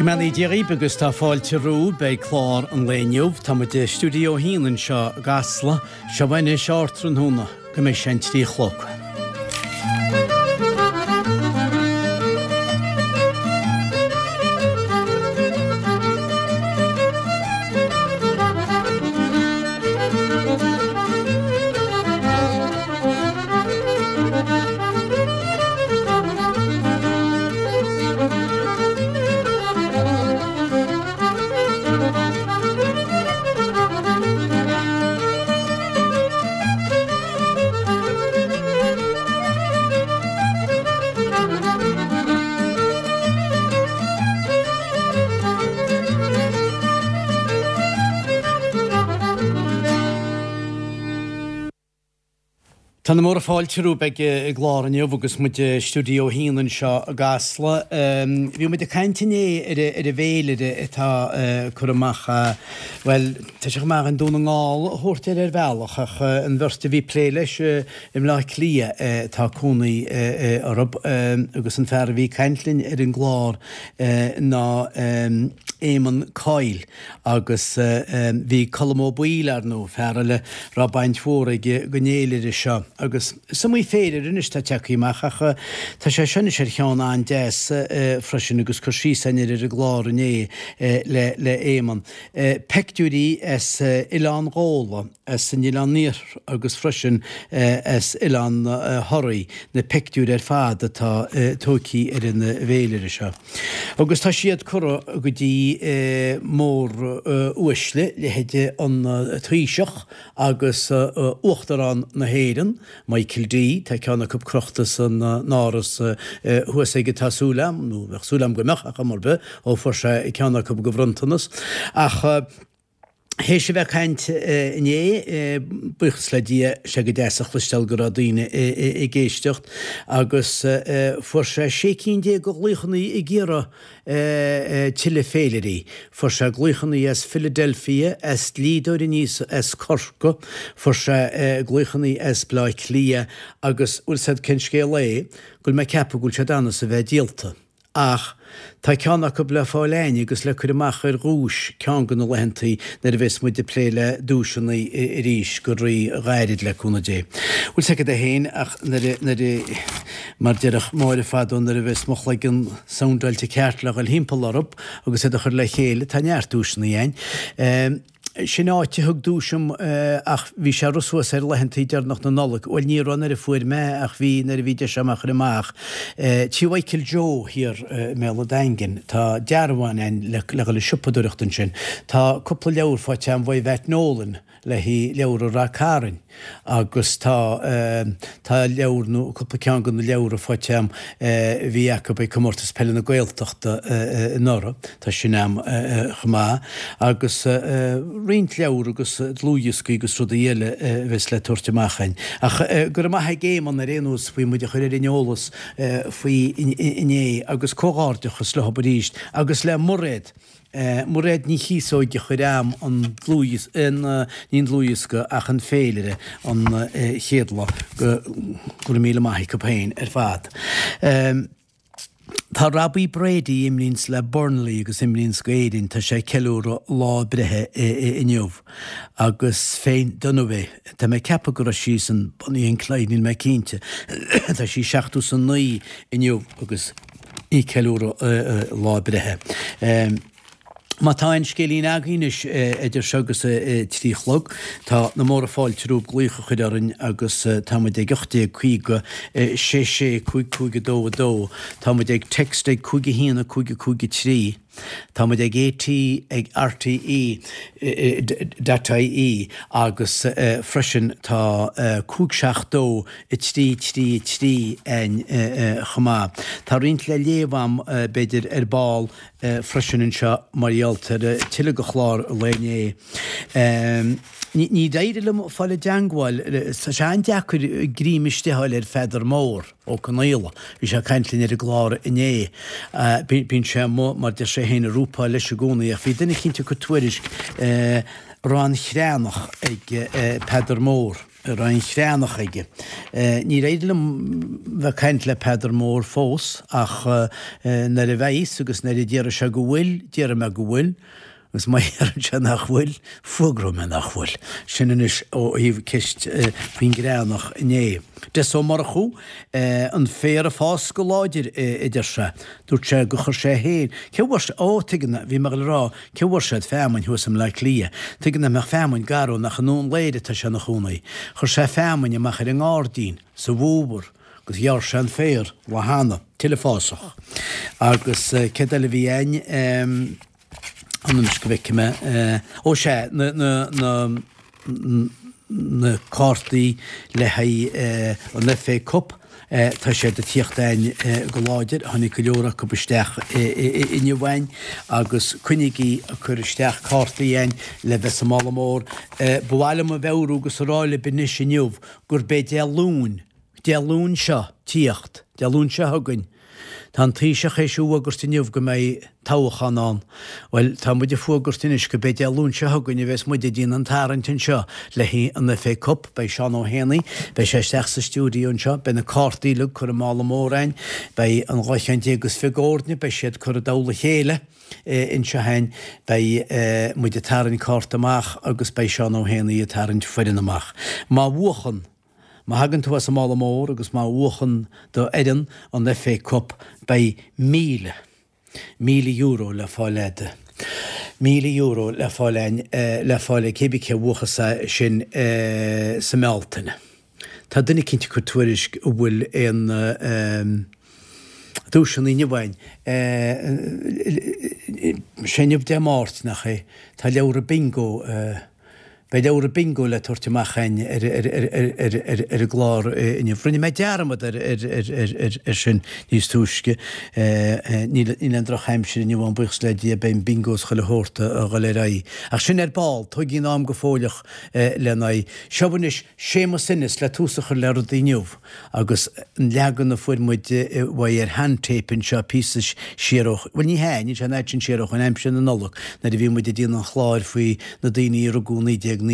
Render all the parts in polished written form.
Go mbeannaí Dia dhaoibh agus tá fáilte romhaibh beidh clár an lae inniu. Tá muid i Stiúideo 1 anseo i gCasla. Seo anois ardtráthnóna go mbeidh sé an 3 a chlog. Tá na móra fáilte romhaibh ag an gclár inniu agus muid i Stiúideo 1 anseo i gCasla. Bhí muid ag caint inné ar an bhféilire atá curtha amach, bhuel, tá sé chomh maith againn Dún na nGall a thabhairt air ar bhealach ach an bheirt a bhí ag plé leis i mBleá Cliath tá cónaí orthu agus an fear a bhí ag caint linn ar an gclár ná Éamonn Coyle. Agus bhí Colm Ó Baoill, ar ndóigh, fear eile a raibh baint mhór aige den fhéilire seo. Agus is iomaí féilire anois atá tagtha amach ach tá sé seo anois ar cheann an-deas freisin agus cur síos againn air ar an gclár inné le le Éamonn. Peictiúirí as Oileán Ghabhla, as an Oileán Iarthar agus freisin as Oileán Thoraí, na peictiúir ar fad atá tógtha ar an bhféilire seo. Agus tá siad curtha go dtí mór-uaisle, leithéide an Taoiseach agus Uachtarán na hÉireann, Michael D. Tá ceann acu crochta san áras thuas aige tá súil a'm, nó bheadh súil a'm go mbeadh, ar chuma ar bith, ó fuair sé ceann acu go bhronntanas. Ach. Théis a bheith ag caint inné, buíochas le Dia, sé go deas a chloisteáil go raibh daoine ag éisteacht agus fuair sé 16 cinn de ghlaochanna ag iarraidh tuilleadh féilirí. Fuair sé glaochanna as Philadelphia, as dlíodóir aníos as Corcaigh, fuair sé glaochanna as Bleá Cliath agus bhfuil 's a'd cén scéal é, go bhfuil mé ag ceapadh go bhfuil siad ann is a bheith díolta. Ach tá ceann acu le fáil a'ainn agus le cur amach ar dhuais ceann de na laethantaí nuair a bheas muid ag plé le duaiseanna arís go rí-ghairid le cúnamh Dé. Bhfuil 's agat é féin ach nuair a, nuair a, mar déarfadh Máire fadó nuair a bheas mo chloigeann soundáilte ceart le dhul thimpeall orthu agus iad a chur le chéile, tá neart duaiseanna a'ainn. Sin áit a thug duais dom ach bhí sé rith suas ar laethantaí deireanach na Nollag. Bhuel ní raibh nuair a fuair mé ach bhí nuair a bhí deis agam a chur amach. Tí Mhichael Joe thiar i mBéal an Daingin. Tá dearbhán a'inn le dhul ag siopadóireacht ansin. Tá cúpla leabhar faighte a'm uaidh Yvette Nolan le haghaidh leabhar Rath Cairn. Agus tá, tá leabhar nó cúpla ceann de na leabhra faighte a'm a bhí acu ag Comórtas Peile na Gaeltachta anuraidh, tá sin a'm chomh maith. Agus roinnt leabhar agus dlúthdhioscaí agus rudaí eile a bheas le tabhairt amach a'inn. Ach go raibh maith ag Éamonn ar aon nós faoi muid a chur ar an eolas faoi inné agus comhghairdeachas leo arís agus le Mairéad. Mairéad Ní Chíosóig a chuir a'm an dlúthdhiosca, ní an dlúthdhiosca ach an féilire an chéad lá, go raibh míle maith acu féin ar fad. Tá Robbie Brady, a imríonns le Burnley agus imríonns go Éirinn, tá sé ag ceiliúradh lá a breithe inniu agus Faye Dunaway, tá mé ag ceapadh go raibh sí san Bonnie and Clyde, níl mé cinnte, tá sí 79 inniu agus í ag ceiliúradh lá a breithe. Má tá aon scéilín agaibh anois idir seo agus a 3 a chlog, tá na móra fáilte romhaibh glaoch a chur orainn agus tá muid ag 1850 6 6 5 5 2 2. Tá muid ag text ag 5 1 5 5 3. Tá muid ag AT ag RTE dot ie agus freisin tá 5 7 2 3 3 3 a'inn chomh maith. Tá roinnt le léamh a'm b'fhéidir ar ball freisin anseo mar gheall ar tuilleadh de chlár an lae inné. Níor éirigh liom fáil i dteangmháil, tá sé an-deacair greim istigh a fháil ar Pheadar Mór Ó Conaola. Bhí sé ag caint linn ar an gclár inné. Bíonn sé amuigh, mar deir sé féin, ag rúpáil leis i gcónaí ach bhí duine eicínt ag cur tuairisc raibh an chreathnach ag Peadar Mór. Raibh an chreathnach aige. Níor éirigh liom bheith ag caint le Peadar Mór fós ach nuair a bheidh's agus nuair a déarfaidh sé go bhfuil, déarfaidh mé go bhfuil. Agus má dheireann sé nach bhfuil, fuagróidh mé nach bhfuil. Sin anois ó thaobh ceist faoin gcreathnach inné. Des Ó Murchú, an féar ag fás go láidir, a deir sé. Dúirt sé gur chuir sé féin, cé bhfuair sé, ó, tuigim, bhí mé ag dul a rá, cé bhfuair siad feamainn thuas i mBleá Cliath. Tuigim nach mbeadh feamainn garbh nach i nDún Laoghaire atá sé ina chónaí. Chuir sé feamainn amach ar an ngairdín sa bhfómhar agus ghearr sé an féar lá cheana. Tuilleadh fásach. Agus céard eile a bhí a'inn? Anois go bhfeicfidh mé. Ó sea, na, na, na, na cártaí le haghaidh an FA Cup, tá siad ag tíocht a'inn go láidir, tháinig go leor acu isteach inniu a'inn agus coinnígí ag cur isteach cártaí a'inn le bheith sa mála mór. Ba mhaith liom a mheabhrú agus a rá libh anois inniu gurb é Dé Luain, Dé Luain seo tíocht, Dé Luain seo chugainn. Tá an Taoiseach théis a fhuagairt inniu go mbeidh toghchán ann. Bhuel, tá muid ag fuagairt anois go b'é Dé Luain seo chugainn a bheas muid ag déanamh an tarraingt anseo le haghaidh an FA Cup. Beidh Seán Ó hÉanaí, beidh sé isteach sa stiúideo anseo, beidh na cártaí uilig curtha i mála mór a'inn, beidh an 12 cheann is fiche d'fhoirne, beidh siad curtha i dtoll a chéile anseo a'inn, beidh muid ag tarraingt cárta amach agus beidh Seán Ó hÉanaí ag tarraingt foireann amach. Má bhuachann. Má thagann tú as an mála mór agus má bhuachann do fhoireann an FA Cup beidh €1,000, €1,000 le fáil a'd. €1,000 le fáil a'inn, le fáil ag cébí cé a bhuachas é sin sa mBealtaine. Tá duine eicínt ag cur tuairisc an bhfuil aon duaiseanna inniu a'inn. Sé inniu Dé Máirt, nach é? Tá leabhra bingo. Beidh leabhra bingo le tabhairt amach a'inn ar an gclár inniu. Rinne mé dearmad ar sin níos túisce. Níl aon drochaimsir inniu ann, buíochas le Dia, beidh an bingo is chuile shórt a dhul ar aghaidh. Ach sin ar ball, tógfaidh an am go fóilleach lena aghaidh. Seo anois Séamus Ennis le tús a chur le rudaí inniu. Agus an leagan a fuair muid uaidh ar shean-tape anseo píosa siar ó, bhuel ní hea, níl sé an fhad sin siar ó shoin, aimsir na Nollag, nuair a bhí muid ag déanamh an chláir faoi na daoine a rugadh 1919.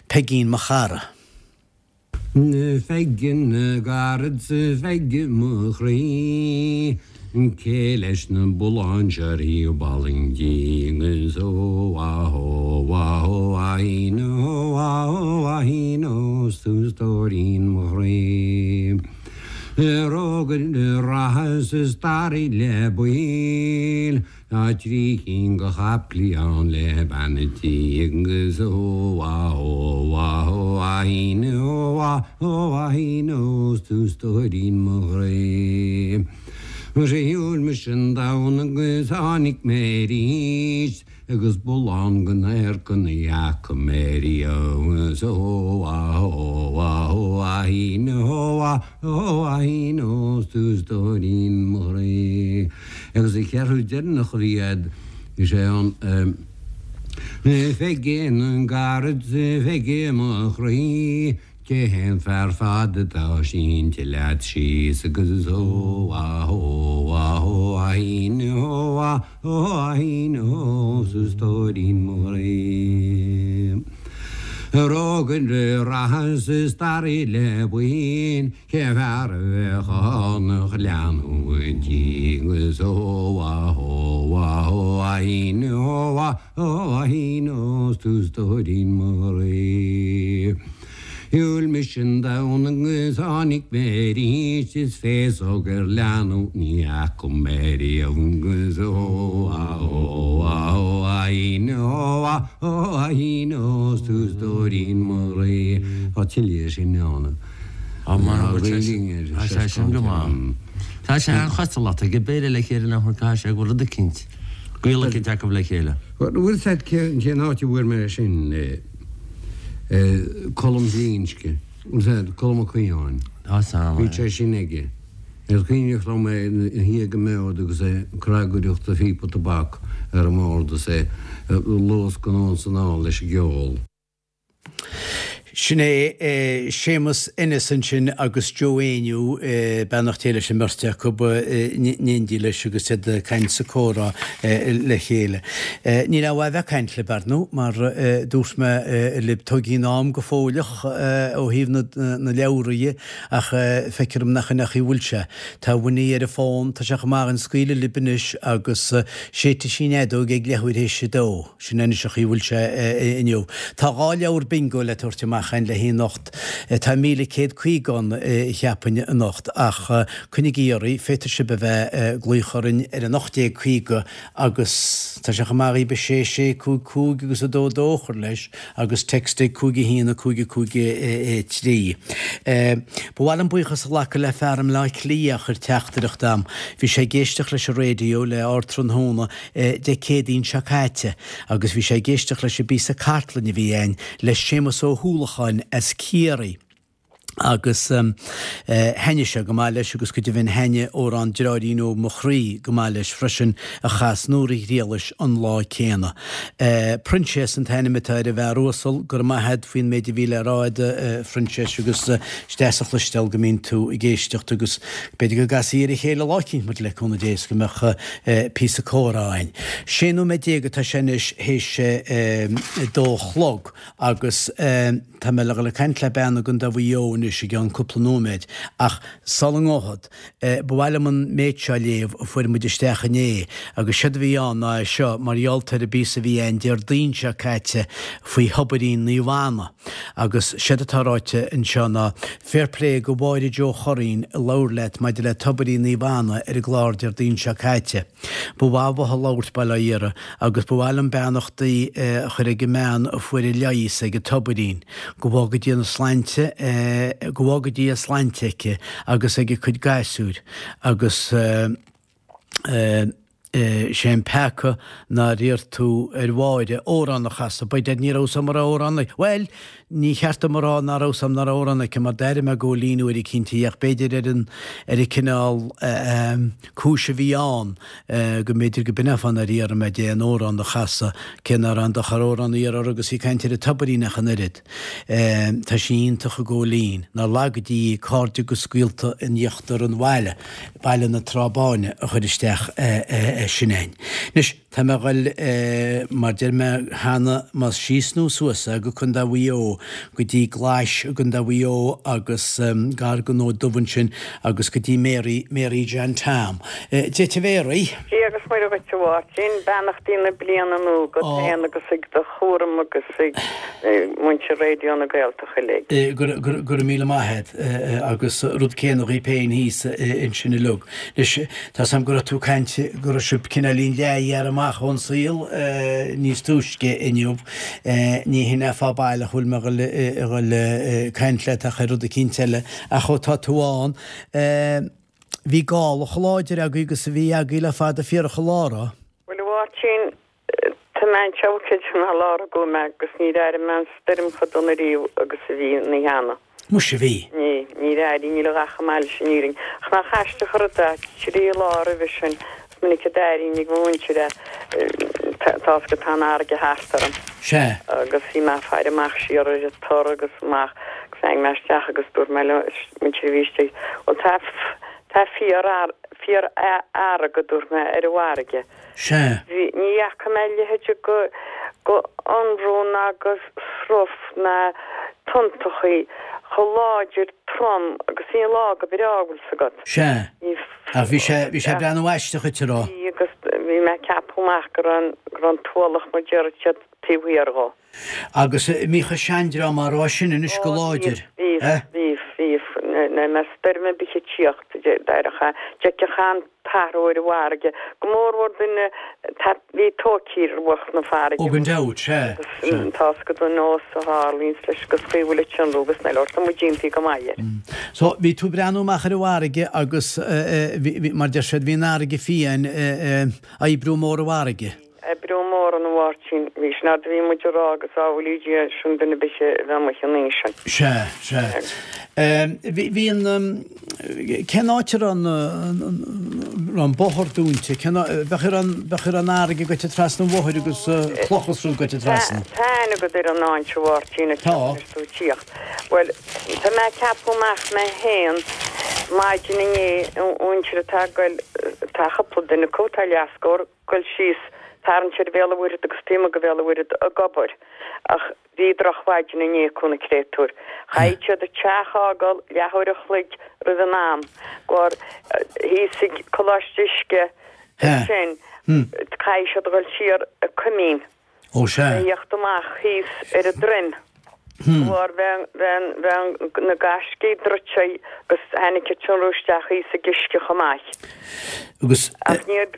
Peigín mo chara. Pheigí na gcarad 's a Pheigí mo chroí. Cé leis na bulláin seo ar thaobh Bhaile an Tí agus ó a hó a hó a hín ó a hó a hín ó 's tú stóirín mo chroí. Rógaire reatha 's a staraí le baill Tá trí cinn de chaiplí ann le bean an tí agus ó a hó a hó a hín ó a hó a hín ó 's tú stóirín mo chroí. Shiúil mise an domhan agus tháinig mé arís agus bullán den adharca ní fhaca mé riamh agus ó a hó a hó a hín ó a hó a hín ó 's tú stóirín mo chroí. Agus an cheathrú deireanach a bhí a'd, is é an Pheigí na gcarad 's a Pheigí mo chroí, cé hé an fear fada atá sínte leat síos agus is ó a hó a hó a hín ó a hó a hín ó 's a stóirín mo chroí. Rógaire reatha 's a staraí le buíon Cén fear a bheadh ann ach leanbh an tí agus ó a hó a hó a hín ó a hó a hín ó 's tú stóirín mo chroí. Shiúil mise an domhan agus tháinig mé arís is féasóg ar leanbh ní fhaca mé riamh agus ó a hó a hó a hín ó a hó a hín ó 's tú stóirín mo chroí. Tá tuilleadh sin ann. Tá sé sin go maith. Tá sé an-chosúil leat ag an béile le chéile nach bhfuil caithfidh sé go bhfuil rud eicínt. Gaol eicínt acu le chéile. Bhfuil 's a'd cén áit a bhfuair mé sin, Colm Glinsce, bhfuil 's a'd, Colm Ó Caodháin. Tá 's a'm, Bhí sé sin aige. Is cuimhneach liom é ina shuí ag an mbord agus é ag cnagaireacht a phíopa tobac ar an mbord is é ag luascadh anonn 's anall leis an gceol. Sin é Séamus Ennis ansin agus Joe Éinniú, beannacht Dé leis an mbeirt acu, in éindí leis agus iad ag caint sa comhrá le chéile. Níl aon mhaith a bheith ag caint libh, ar ndú, mar dúirt mé libh, tógfaidh an am go fóilleach ó thaobh na leabhra dhe, Ach feictear dom nach in é an chaoi a bhfuil sé. Tá Winnie ar an bhfón, tá sé chomh maith againn scaoileadh libh anois agus séidfidh sí an fheadóg ag leathuair théis a dó. Sin é anois an chaoi a bhfuil sé inniu. Tá 2 leabhar bingo le tabhairt amach againn le haghaidh anocht. Tá 1,150 ann, cheapfainn, anocht. Ach coinnigí oraibh, féadfaidh sibh a bheith ag glaoch orainn ar an 1850 Agus tá sé chomh maith dhaoib 6 6 5 5 agus 2 2 a chur leis agus text ag 5 1 5 5 3. Ba mhaith liom buíochas a ghlacadh le fear i mBleá Cliath a chuir teachtaireacht a'm. Bhí sé ag éisteacht leis an raidió le ardtráthnóna Dé Céadaoin seo caite agus bhí sé ag éisteacht leis an bpíosa cartlainne a bhí a'inn le Séamus Ó hUallacháin as Ciarraí. agus thaitnigh sé go maith leis agus go deimhin thaitnigh amhrán Deartháirín Óg Mo Chroí go maith leis freisin a chas Nóra Ghriallais an lá céanna. Proinséas an t-ainm atá ar an bhfear uasal, go raibh maith a't faoin méid a bhí le rá a'd a Phroinséas agus is deas a chloisteáil go mbíonn tú ag éisteacht agus b'fhéidir go gcasfaí ar a chéile lá eicínt muid le cúnamh Dé is go mbeadh píosa comhrá a'inn. 16 nóiméad atá sé anois théis a dó a chlog agus. Tá mé le dhul ag caint le bean i gContae Mhaigh Eo anois i gceann cúpla nóiméad, ach sula ngabhfad, ba mhaith liom an méid seo a léamh a fuair muid isteach inné, agus séard a bhí ann ná é seo, mar gheall ar an bpíosa a bhí a'inn Déardaoin seo caite faoi thobairín Naomh Anna. Agus séard atá ráite anseo ná, Fair play go Mháire Joe Churraoin a labhair leat maidir le tobairín Naomh Anna ar an gclár Déardaoin seo caite. Ba mhaith uathu labhairt, bail ó Dhia orthu, agus ba mhaith liom beannachtaí a chur ag an mbean a fuair a leigheas ag an tobairín. Go bhfága Dia na slainte, go bhfága Dia a slainte aici agus ag a cuid gasúir, agus sé an peaca nár iarr tú ar Mháire amhrán a chasadh, by dad ní raibh 's a'm an raibh amhrán aici, bhuel, ní cheart dom a rá ná raibh 's a'm ná raibh amhrán aici mar d'airigh mé Góilín uair eicínt í ach b'fhéidir ar an, ar an cineál cúis a bhí ann go mb'fhéidir go b'in é an fáth nár iarr mé di aon amhrán a chasadh, cé ná raibh aon dochar amhrán a iarraidh uirthi agus í ag caint ar an tobairín ach an oiread. Tá sí iontach a Góilín. Nár laga Dia í, cairde agus gaolta in íochtar an bhaile, Baile na Trá Báine, a chuir isteach sin a'inn. Anois. Tá mé a ghoil, mar deir mé cheana, más síos nó suas é, go Contae Mhaigh Eo, go dtí Glais i gContae Mhaigh Eo agus gar don Fhód Dubh ansin agus go dtí Mary, Mary John Tom. Dia duit a Mhéaraí. Dia agus Muire dhuit a Mháirtín, beannachtaí na bliana nua agat féin agus ag do chúram agus ag muintir Raidió na Gaeltachta uilig. Go raibh míle maith a't agus rud céanna dhaoib féin thíos ansin uilig. Anois, Tá's a'm go raibh tú ag caint go raibh sibh cineáilín leath-ghearrtha amach ón saol níos túisce inniu. Ní hin é fáth baileach a bhfuil mé a dhul ag caint leat ach ar rud eicínt eile. Ach ó tá tú ann, bhí gála chomh láidir agaibh agus a bhí agaibh le fada fíorach an lá, raibh? Bhuel, a Mháirtín, Tá mé anseo creidim ná lá a gcuaigh mé agus níor airigh mé an stoirm chomh dona riamh agus a bhí an oíche cheana. Muise bhí. Ní, níor airigh, níl a dhath chomh maith leis an fhírinne. Ach nach aisteach an rud é, trí lá roimhe sin, is minic a d'airínn ag mo mhuintir é, tá's agat tá an fharraige thart orm. Sea. Agus bhí mé ag faire amach siar ar an tor agus amach agus tháinig mé isteach agus dúirt mé le muintir a bhí istigh, bhuel tá, tá fíor, fíorfhearg, a dúirt mé, ar an bhfarraige. Sea. Bhí, ní fhaca mé a leithéid go, go ionrún ná go sruth ná tonntachaí chomh láidir trom agus bhí an lá go breá, bhfuil 's agat. Sea. Ní. Ach bhí sé, bhí sé ag breathnú aisteach dhuit, a raibh? Bhí agus bhí mé ag ceapadh amach go raibh an, go raibh an t-ualach mar déarfadh siad taobh thiar dhó. Agus an mbíodh an seandream á rá sin anois go Ó, láidir, bhíodh, eh? bhíodh, bhíodh, bhíodh. Nuair a mbeadh stoirm ar bith ag tíocht, d'éireodh, d'fheicfeá an t-athrú ar an bhfarraige, go mórmhór duine a bhí tóigthe ar bhruach na farraige. Ó gan dabht, sea, sea. Tá's agat an nós a tharlaíonns leis agus chaoi a bhfuil an tionrú agus na leor, tá muid iontaí go maith air. So, bhí tú ag breathnú amach ar an bhfarraige agus, bhí, mar deir siad, bhí an fharraige fiáin, oibriú mór an bhfarraige. Oibriú mór ann a Mháirtín. Bhí sin fhad a bhí muid ag rá agus sábhálaí Dia sin duine ar bith a bheith amuigh an oíche sin. Sea, sea. Bhí, bhí an, cén áit a raibh an, raibh an bóthar dúnta? Cén áit, bheadh ar an, bheadh ar an fharraige goite trasna an bhóthair agus clocha is rud goite trasna? Tá aithne agat ar an áit a Mháirtín a Tá. tú tíocht. Bhuel, tá mé ag ceapadh amach mé féin maidin inné, an mhuintir atá ag goil, tá cúpla duine acu, tá leathscór, goil síos, tarraingt ar Bhéal an Mhuirthead agus taobh amuigh de Bhéal an Mhuirthead ag obair ach bhí drochmhaidin inné acu na créatúir. Chaithfidh siad an teach a fhágáil leathuair a chloig roimh an am gur thíos ag Coláiste Uisce ansin caithfidh siad a dhul siar ag Coimín. Ó sea. A thíocht amach thíos ar an droim. Bharr bheadh na gaiscí druidte agus tháinig an tionrú isteach thíos ag uisce chomh maith. Agus. Ach níor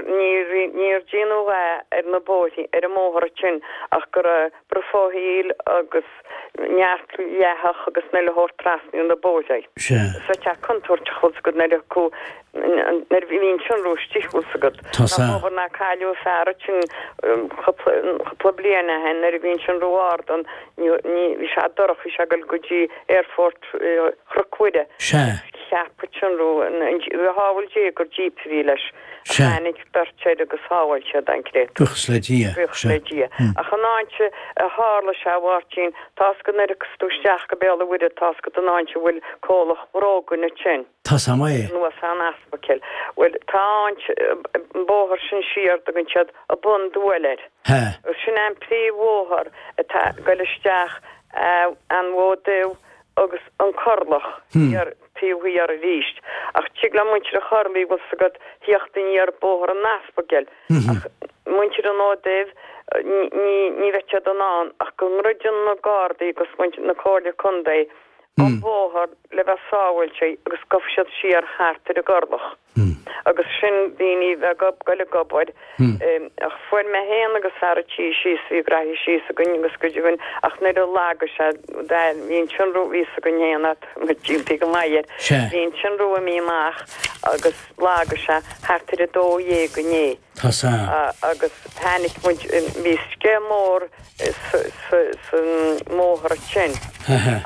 níor déanadh a dhath ar na bóithrí, ar an mbóthar ansin ach go raibh brofóill agus neart leathach agus na leabhar trasna ar na bóithrí. Sea. Is tá contúirteach bhfuil 's agat nuair a cu nuair a bhíonn tionrú istigh bhfuil 's agat. Tá 's Nach obair ná cailleadh fear ansin cúpla bliain ó shin nuair a bhí an tionrú ard ann ní bhí sé dorcha bhí sé ag dul go dtí aerfort Chnoc Mhuire. Sea. Cheap an tionrú shábháil Dé gur jíp a bhí leis. Sea. Tháinig beirt air agus shábháil siad an créatúr. Buíochas le Dia. Buíochas le Dia. Ach an áit a tharla sé a Mháirtín, tá's agat nuair a thiocfas tú isteach go Béal an Mhuirthead tá's agat an áit a bhfuil comhlacht bróga ansin. Tá's a'm é. Anuas an Aspaicil. Bhuel, tá an, an bóthar sin siar, dtugann siad an Bun Duail air. He. Agus sin an príomhbhóthar atá ag goil isteach an Mhóid Dubh agus an Corrlach thiar, taobh thiar arís. Ach tig le muintir an Chorlaigh, bhfuil 's agat, thíocht aniar bóthar an Aspaicil. Ach muintir an Fhóid Duibh, ní, ní bheidh siad in ann ach go ndruideann na Gardaí agus muintir na Comhairle Contae an bóthar le bheith sábháilte agus gabhfaidh siad siar thart ar an gCorrlach agus sin daoine bheith ag goil ag obair ach fuair mé féin agus fear a' tí síos bhí graithí síos againn agus cuid againn ach nuair a lagaigh sé bhí an tionrú bhí 's againn féin at muid go maith air bhí an tionrú imithe amach agus lagaigh sé thart ar a 12 inné. Tá 's a'm. Agus tháinig muid, bhí sceith mór sa mbóthar ansin.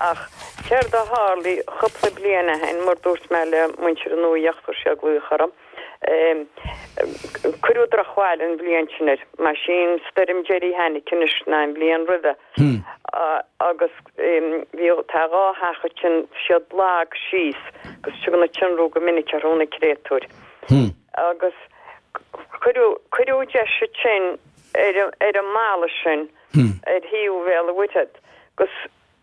Ach céard a tharlaigh cúpla bliain ó shin, mar dúirt mé le muintir an Nuacht, chuir siad glaoch orm, cuireadh drochbhail an bhliain sin air, mar sin stoirm deiridh a tháinig anois ná an bhliain roimhe. Agus bhí, tá dhá theach ansin, siad lag síos agus tugann an tionrú go minic orthu na créatúir. Agus cuireadh, cuireadh deis ansin ar, ar an mballa sin ar thaobh Bhéal an Mhuirthead agus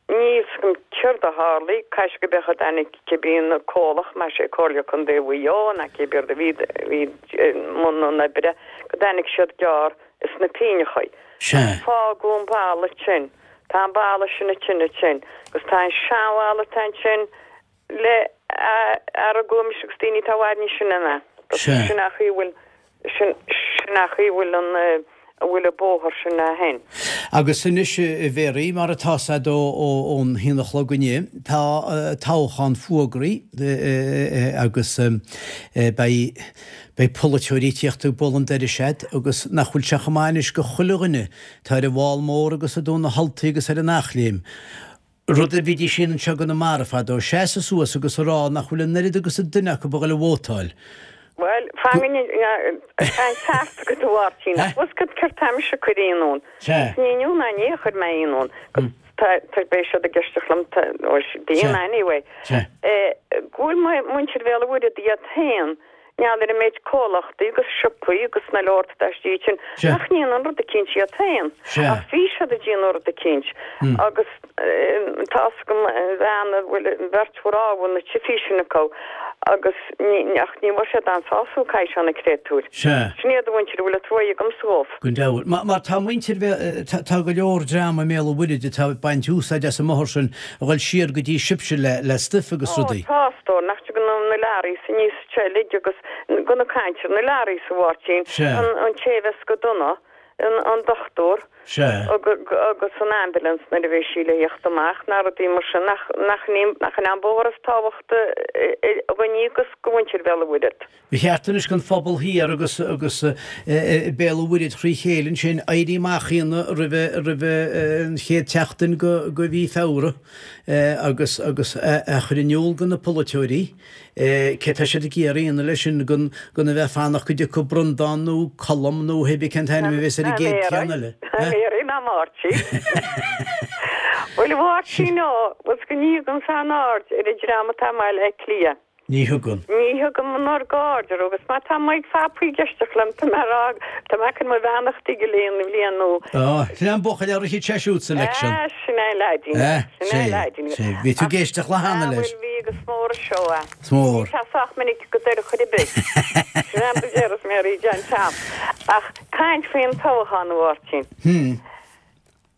níl 's agam céard a tharlaigh, caithfidh sé go b'eadh a dtáinig cibé an comhlacht, más é Comhairle Contae Mhaigh Eo ná cibé rud a bhí, bhí i mbun an oibre, go dtáinig siad gearr is na píneachaí. Sea. Fágadh an balla ansin, tá an balla sin ansin ansin agus tá an seanbhalla atá ansin, le argóimis agus daoine atá i bhfad níos sine ná. Sea. Sin a chaoi a bhfuil, sin, sin a chaoi a bhfuil an, a bhfuil an bóthar sin a shin. Agus anois, a Mhéaraí, mar atá 's a'd ó, ó, ón haon a chlog inniu, tá toghchán fuagraithe agus beidh, beidh polaiteoirí ag tíocht ag bualadh an doiris a'd agus nach bhfuil sé chomh maith anois go chuile dhuine atá ar an bhFál Mór agus i dTóin na hUltaí agus ar an Eachléim, Rud a bhídís féin anseo i gConamara fadó, seasamh suas agus a rá nach bhfuil an oiread agus an duine acu a dhul a vótáil. Bhuel, fan go tá an ceart agat a Mháirtín. Ach bhfuil 's agat céard tá mise ag cur ionadh ann? Sea. Ní inniu ná inné a chuir mé ionadh ann. Agus tá, tá, beidh siad ag éisteacht liom, tá, nó bíonn anyway. Sea. Go bhfuil muintir Bhéal an Mhuirthead iad féin ngeall ar an méid comhlachtaí agus siopaí agus na leor atá istigh ansin, nach ndéanann rud eicínt iad féin. Ach bhí siad ag déanamh rud eicínt agus tá's agam an bhean a bhfuil an bheirt mhná a bhfuil na tsiopaí sin acu. Agus ní, ach ní bhfuair siad an-sásúil caithfidh sé na créatúir. Sea. Sin iad an mhuintir a bhfuil an truaighe agamsa dhóibh. Go deimhin. Mar, mar tá muintir Bhéal, tá, tá go leor dream i mBéal an Mhuirthid atá ag baint úsáid as an mbothar sin a dhul siar go dtí sibhse le, le stuif agus Ó, rudaí. tá, a stór, nach dtugann na, na learaí aníos anseo uilig agus go na caint ar na learaí a Mháirtín, Sea. an, an té a bheas go dona, an, an dochtúr. Sea. Agus an ambulance nuair a bheidh sí le theacht amach, na rudaí mar sin, nach, nach in, nach in an bóthar is tábhachtaí dhúinne agus go mhuintir Bhéal an Mhuirthead. Ba cheart anois don phobal thiar agus, agus Béal an Mhuirthead thrí chéile ansin éirí amach a dhéanamh roimhe, roimhe an chéad tseachtain go, go mhí Feabhra agus, agus a chur in iúl go na polaiteoirí. Cé tá siad ag iarraidh a dhéanamh leis sin gan gan a bheith ag fanacht go dtiocfaidh Brundán nó Colm nó hé bith cén t-ainm a bheas ar an gcéad cheann eile? Tá mé ar ná Máirtín. Bhuel a Mháirtín ó, bhfuil 's go ní thugaimse aon aird ar an dream atá i mBaile Átha Cliath. Ní thugann. Ní thugaim an oiread aird orthu agus má tá Mike Phapaí ag éisteacht liom tá mé ag rá tá mé ag cur mo bheannachtaí go léir an bhliain nua. Á, sin é an buachaill a rithfeadh sé siúd sa election. Á, sin é an leaidín. Sin é an leaidín. Sea, bhí tú ag éisteacht le hana leis. Á, bhuel, bhí agus is mór an seó é. Is mór. Ní tá sách minic go deireadh chor ar bith. Sin é an deireadh is mé rí John Tom. Ach caint faoin toghchán, a Mháirtín.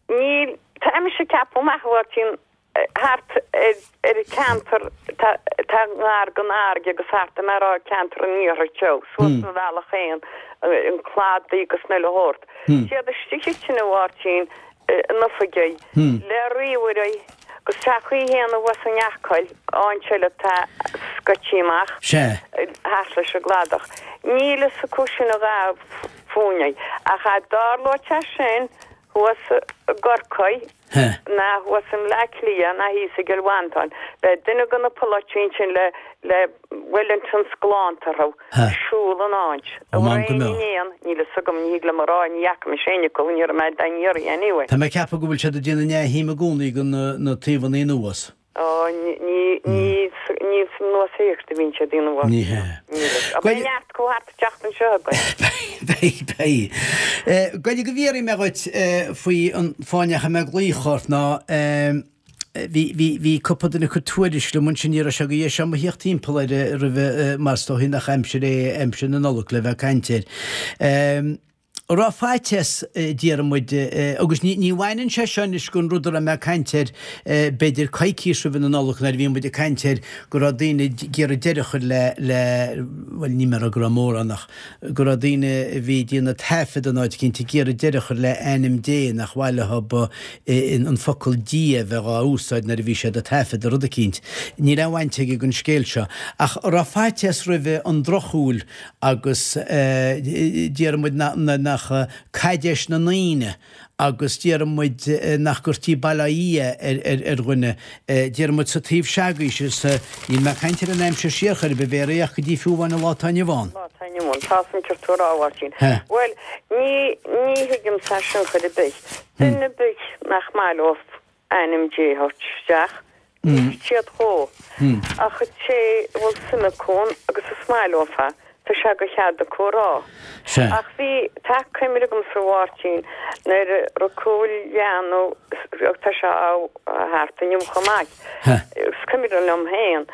Níl, tá mise ag ceapadh amach, a Mháirtín, thart ar an cheantar tá ngar don fharraige agus thart tá mé ag rá ceantar an iarthair teo, suas an bhealach féin, an Cladaigh agus an uile shórt. Siad istigh ansin a Mháirtín in oifigí le ríomhairí agus tá chaoi fhéin abhus in Acaill, áit eile atá scoití amach thart leis an gcladach. Níl fhios acu sin a dhath fúinne ach a dtarlóidh sé sin thuas i gCorcaigh, ná thuas i mBleá Cliath ná thíos i gCill Mhantáin. Beidh duine de na polaiteoirí ansin le le Wellingtons glánta orthu ag siúl an áit. Ó, An m'anam go raibh mbeadh. éinne in aon, níl fhios agam, ní thig liom a rá, ní fhaca mise éinne acu, ní raibh mé dá n-iarraidh anyway. Tá mé ag ceapadh go bhfuil siad ag déanamh neamhshuim i gcónaí de na taobhanna anuas. Ó, ní, ní, ní san anuas thíos a bhíonn siad ag déanamh. Ní hea. Níl fhios. Ach beidh neart acu thart an tseachtain seo againn. Beidh, beidh. Goidé go bhfiafraí mé dhuit faoi an fáth a ndeachaigh mé ag glaoch ort ná bhí, bhí, bhí cúpla duine ag cur tuairisc liom ansin, ní raibh sé go dheis agam a theacht timpeall air roimhe mar is dóichí nach aimsir é aimsir na Nollag le bheith ag caint air. Raibh faitíos, déarfaidh muid, agus ní bhaineann sé seo anois den rud a raibh mé ag caint air b'fhéidir coicís roimhe na Nollag nuair a bhí muid ag caint air go raibh daoine ag iarraidh deireadh a chur le, le, bhuel níl mé ag rá go raibh mórán ach go raibh daoine a bhí ag déanamh taifead in áit eicínt ag iarraidh deireadh a chur le ainm Dé nach mhaith leo an focal Dia a bheith dhá úsáid nuair a bhí siad ag taifeadadh rud eicínt. Níl aon bhaint aige den scéal seo. Ach raibh faitíos roimhe an drochshúil agus déarfaidh muid nach caidéis na ndaoine agus déarfaidh muid nach gcuirtí Bail ó Dhia ar dhuine, déarfaidh muid sa taobh se'agaibhse, sa, níl mé ag caint ar an aimsir siar chor ar bith, b'fhéidir ach go dtí fiú amháin an lá atá inniu ann. Lá atá inniu ann, tá san ceart tú a rá, a Mháirtín. Bhuel, ní, ní thuigimse é sin chor ar bith. Duine ar bith nach maith leo ainm Dé a thabhairt isteach, ligfidh siad dhó. Ach an té a bhfuil suim acu ann agus is maith leofa, tá sé de chead acu a rá. Ach bhí, tá cuimhne agamsa a Mháirtín, nuair a rugadh leanbh, tá sé thart inniu chomh maith, is cuimhin liom féin,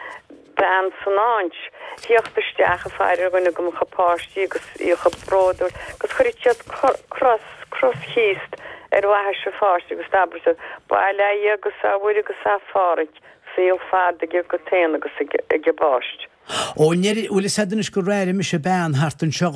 bean san áint, thíocht isteach ag faire ar dhuine de mo chuid páistí agus í chomh bródúil agus chuireadh siad cros, cros Chríost ar bhaithis an pháiste agus d'abraigh siad, Bail ó Dhia agus a Mhuire agus a Pháraic, saol fada aige agat féin agus ag an bpáiste. Ó, bhfuil fhios a'd anois gur airigh mise bean thart anseo,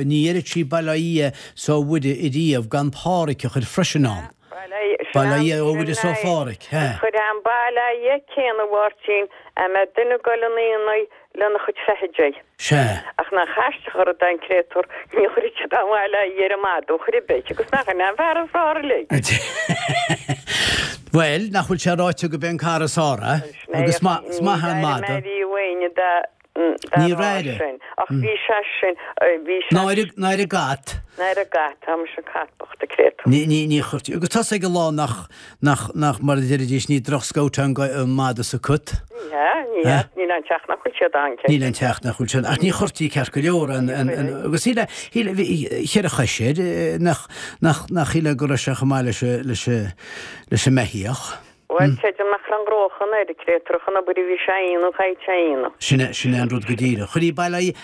ní dheireadh sí Bail ó Dhia 's ó Mhuire ariamh gan Páraic a chur freisin ann. Bail ó Dhia, ó Mhuire 's ó Pháraic, hea. Chuir an Bail ó Dhia céanna a Mháirtín a mbeadh duine ag goil 'un aonaigh lena chuid feithidí. Sea. Ach nach aisteach an rud é an créatúr, ní chuirfeadh siad an Bhail ó Dhia ar an madadh chor ar bith, agus nach in é an fear is fearr uilig. Bhuel, nach bhfuil sé ráite go b'é an cara is fearr é, agus is maith an madadh. Ní raibh éinne dá Ní raibh. sin. Ach bhí sé sin, bhí sé. Ná ar an gcat. Ná ar an gcat, tá mise an cat bocht a créatúr. Ní, ní, ní chuirtí. Agus tá 's ag an lá nach, nach, nach, mar a deiridís, ní droch-scout é an, an madadh is an cat. Ní hea, ní hea, níl aon teach nach bhfuil siad ann, cé. Níl aon teach nach bhfuil siad, ach ní chuirtí ceart go leor an, an, an, agus shíl, shíl, bhí cheithre chois air, nach, nach, nach shíl go raibh sé chomh maith leis, leis, leis an mbeithíoch. Bhuel, creidim nach raibh an gnóchan air, an créatúr ach an obair a bhí sé a dhéanamh, chaithfeadh sé a dhéanamh. Sin é, sin é an rud go díreach. Chuirí bail aghaidh,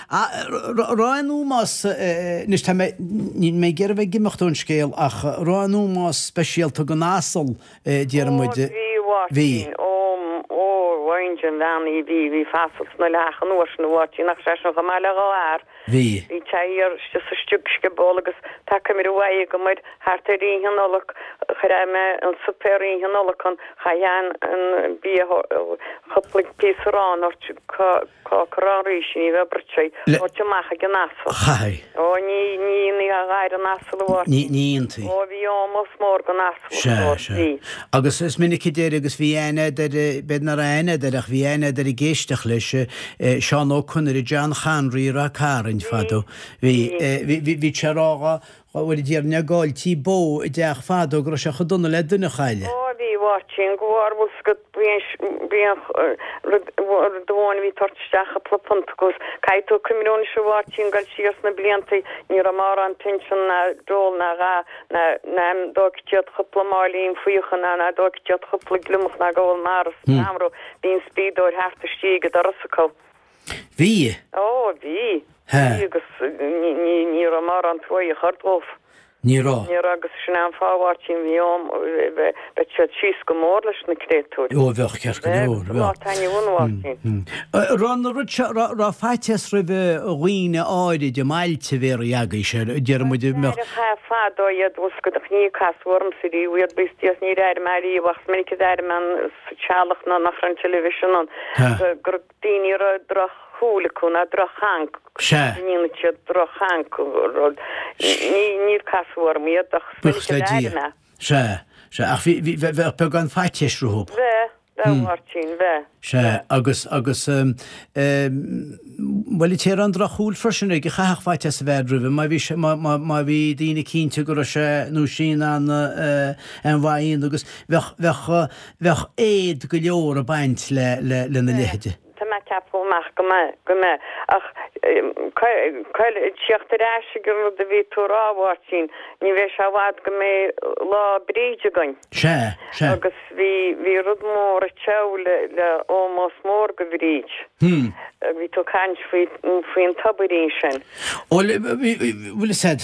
raibh aon ómós, anois tá mé, níl mé ag iarraidh a bheith ag imeacht ón scéal ach raibh aon ómós speisialta don asal, déarfaidh muid. Ó, bhí, a Mháirtín, ó, ó, bhain an bhean í, bhí, bhí fasal sna leath an uair sin, a Mháirtín, ach sé sin chomh maith le dhá fhear. Bhí. Bhí sé thiar istigh sa sciból agus tá cuimhne mhaith agam air thart ar Oíche Nollag chuir mé an suipéar Oíche Nollag ann chaithfeá an bia cúpla píosa aráin a thabhairt cáca arán ríse ní bheadh bruite a thabhairt amach ag an asal. Chaithfí. Ó ní ní ní a ghair an asal a Mháirtín. Ní ní dhéantaí. Ó bhí ómós mór don asal a Sea, sea. Bhí. Agus is minic a deir agus bhí aithne a'd air b'fhéidir nach raibh aithne a'd air ach bhí aithne a'd air ag éisteacht leis Seán Ó Conaire, John Chonry i Ráth Cairn fadó. Bhí, bhí, bhí sé a rá dhá, bhuel a déarfainn dá gcailltí bó i dteach fadó go raibh sé chomh dona le duine a chailleadh. Ó bhí, a Mháirtín, go bhfuair bhfuil 's agat, bhí an, bhí an rud, rud amháin a bhí ag tabhairt isteach cúpla punt agus caithfidh tú cuimhniú anois a Mháirtín dul siar sna bliantaí, ní raibh mórán pinsean ná dole ná a dhath ná, ná dóigh iad cúpla máilín fiacha ná ná dóigh iad cúpla gliomach ná gabhal mara san am raibh Bhí an spíodóir thart istigh ag an doras acu. Bhí? Ó, bhí. Hea. Bhí agus ní, ní, ní raibh mórán truaí a chur dóibh. Ní raibh. Ní raibh agus sin é an fáth, a Mháirtín, bhí am, bheadh siad síos go mór leis na créatúir. Ó, bheadh, ceart go leor, bheadh. Lá atá inniu ann, a Mháirtín. Raibh an rud seo, raibh, raibh faitíos roimh dhaoine áirid i mbailte bhéarraí agaibhse, déarfaidh muid, mbeadh. Aithreacha fadó iad, bhfuil 's agat, ach ní casadh ormsa riamh iad, bíos díos, níor airigh mé riamh ach is minic a d'airigh mé an, sa teallach ná nach raibh an television ann, go raibh daoine a raibh droch-shúil acu ná droch-chaint, Sea. go ndéanadh siad droch-chaint, rud, ní, níor casadh orm iad ach is Buíochas minic le a d'airigh Dia. mé. Sea, sea, ach bhí, bhí, bheadh beagán faitíos rompu. Bheadh, bheadh, a Mháirtín, bheadh. Sea, agus, agus, bhuel, an té a raibh an drochshúil freisin aige, chaithfeadh faitíos a bheith roimhe, má bhí sé, má, má, má bhí daoine cinnte go raibh sé nó sí in ann aon mhaith a dhéanamh agus bheadh, bheadh, bheadh éad go leor ag baint le, le, lena leithide. Tá mé ag ceapadh amach go mbeidh, go mbeidh. Ach, tíocht ar ais ag an rud a bhí tú a rá, a Mháirtín, ní bheidh sé i bhfad go mbeidh Lá Bríde againn. Sea, sea. Agus bhí, bhí rud mór ag teacht le, le ómós mór go Bhríd. Hmm. Bhí tú ag caint faoi, faoin tobairín sin. Bhuel, bhí, bhfuil fhios a'd,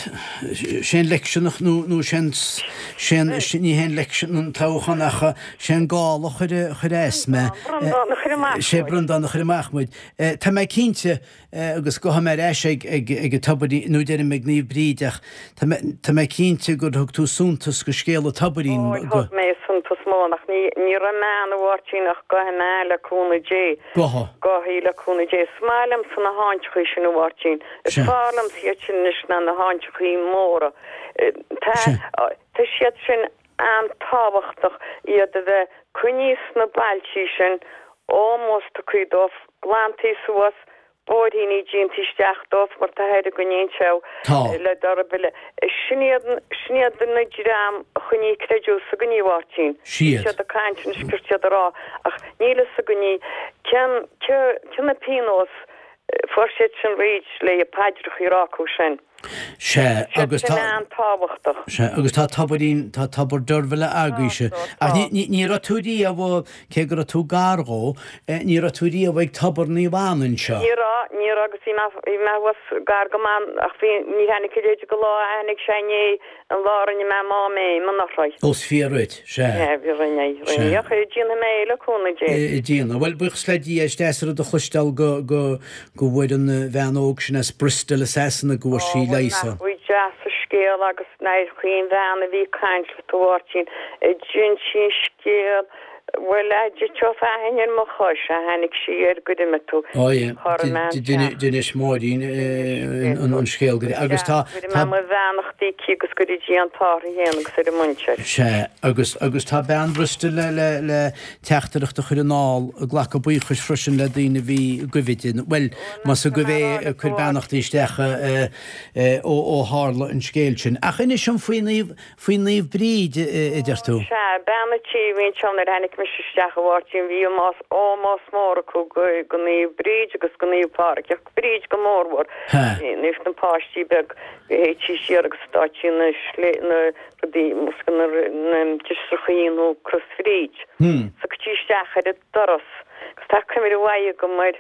sé an election nó, nó sé an, sé an, ní hé an election an toghchán ach sé an gála a chuir, a chuir as mé. Breandán a chuir amach Sé muid. Breandán a chuir amach muid. Tá mé cinnte, agus gabhfaidh mé ar ais ag, ag, ag an tobairín, nó deirim ag Naomh Bríd ach tá mé, tá mé cinnte gur thug tú suntas go scéal an tobairín, Ó, go. thug mé suntas mór, ach ní, ní raibh mé ann a Mháirtín ach gabhfaidh mé le cúnamh Dé. Gabhfaidh. Gabhfaidh le cúnamh Dé. Is maith liomsa na háiteachaí sin a Mháirtín. Is Sea. fearr liomsa iad sin anois ná na háiteachaí móra. Tá, Sea. tá siad sin an-tábhachtach iad a bheith coinnithe sna bailtí sin, ómós tugtha dóibh, glantaí suas, bóithríní déanta isteach dóibh mar tá air againn anseo Tá. le Deirbhile. Sin iad, sin iad na dream a choinnigh creideamh s'againne, a Mháirtín. Siad. Siad ag caint anois céard siad a rá ach níl fhios againne cén, cé, cé na pionós fuair siad sin fríd le paidreacha a rá acu sin. Sea, agus Sin tá. an-tábhachtach. Sea, agus tá tobairín, tá tobar Deirbhile agaibhse. Tá, Ach tá. ní, ní, ní raibh tú riamh, cé go raibh tú gar dhó, ní raibh tú riamh ag tobar Naomh Anna anseo. Ní raibh, ní raibh agus bhí mé, bhí mé thuas gar go maith ach bhí, ní tháinig a leithéid de lá a tháinig sé inné, an lá a rinne mé m'áiméim anuraidh. Ó, is fíor dhuit, sea. Sea, bhí, rinne, rinne. Sea. Ach déanfaidh mé é le cúnamh Dé. Déanfaidh. Bhuel, buíochas le Dia, is deas an rud a chloisteáil go, go, go bhfuair an bhean óg sin as Bristol i Sasana go bhfuair sí Ó, leigheas nach bhfuil deas an scéal agus nár chaoin bhean a bhí ag caint leat a Mháirtín, a d'inis sí an scéal, bhuel, a d'eiteodh fearthainn ar mo chois, a tháinig sí air gur imigh tú, Ó yeah, chuir mé an teach. d'inis Máirín an scéal go agus tá, Cuirfidh mé mo bheannachtaí aici agus go dtí an t-ádh uirthi féin agus ar a muintir. Sea, agus, agus tá bean Bristol le, le, le teachtaireacht a chur anall ag glacadh buíochais freisin le daoine a bhí i gcuimhe di, bhuel, más i gcuimhe é, ag cur beannachtaí isteach ó tharla an scéal sin. Ach inis dom faoi Naomh, faoi Naomh Bríd, a deir tú. Sea, bean a' tí a bhí anseo nuair a tháinig mise isteach a Mháirtín, bhí ómós mór acu go Naomh Bríd agus go Naomh Pádraig, ach Bríd go mórmhór. Bhíodh na páistí beag, théití siar agus d'fháití na, na rudaí, na driosrachaí. dhéanamh Crois Bhríd. So chuirtí isteach ar an doras agus tá cuimhne mhaith agam ar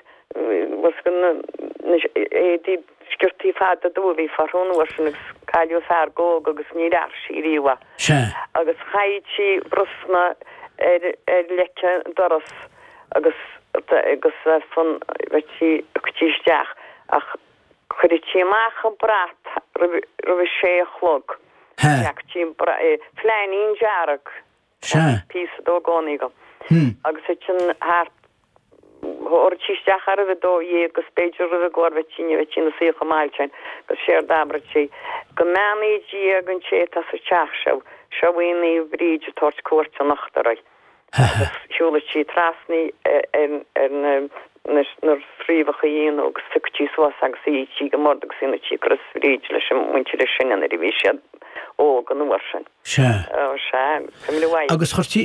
na éadaí sciortaí fada dubha a bhí orthu an uair sin agus cailleadh fear óg agus níor athraigh sí riamh é. Sea. Agus chaithfeadh sí brosna ar ar leic an doras agus agus fan bheadh sí chuirtí isteach ach Chuireadh sí amach an brat roimh a sé a chlog. Leagtí an flainín dearg, Sea. píosa dó i gcónaí agam, agus ansin thart, thabharfadh sí isteach é roimh a 12 agus b'fhéidir roimh an gcomhair bheadh sí, ní bheadh sí ina suí chomh mall sin, agus séard abradh sí, Go mbeannaí Dia don té atá sa teach seo, seo í Naomh Bríd ag tabhairt cuairte anocht oraibh. Agus shiúladh sí trasna ar na fréamhacha fhiáine agus phiocadh sí suas agus shuíodh sí ag an mbord agus dhéanadh sí Crois Bhríde leis an muintir is sine nuair a bhí siad óg an uair sin. Sea. Ó, sea, cuimhne mhaith. Agus chuirtí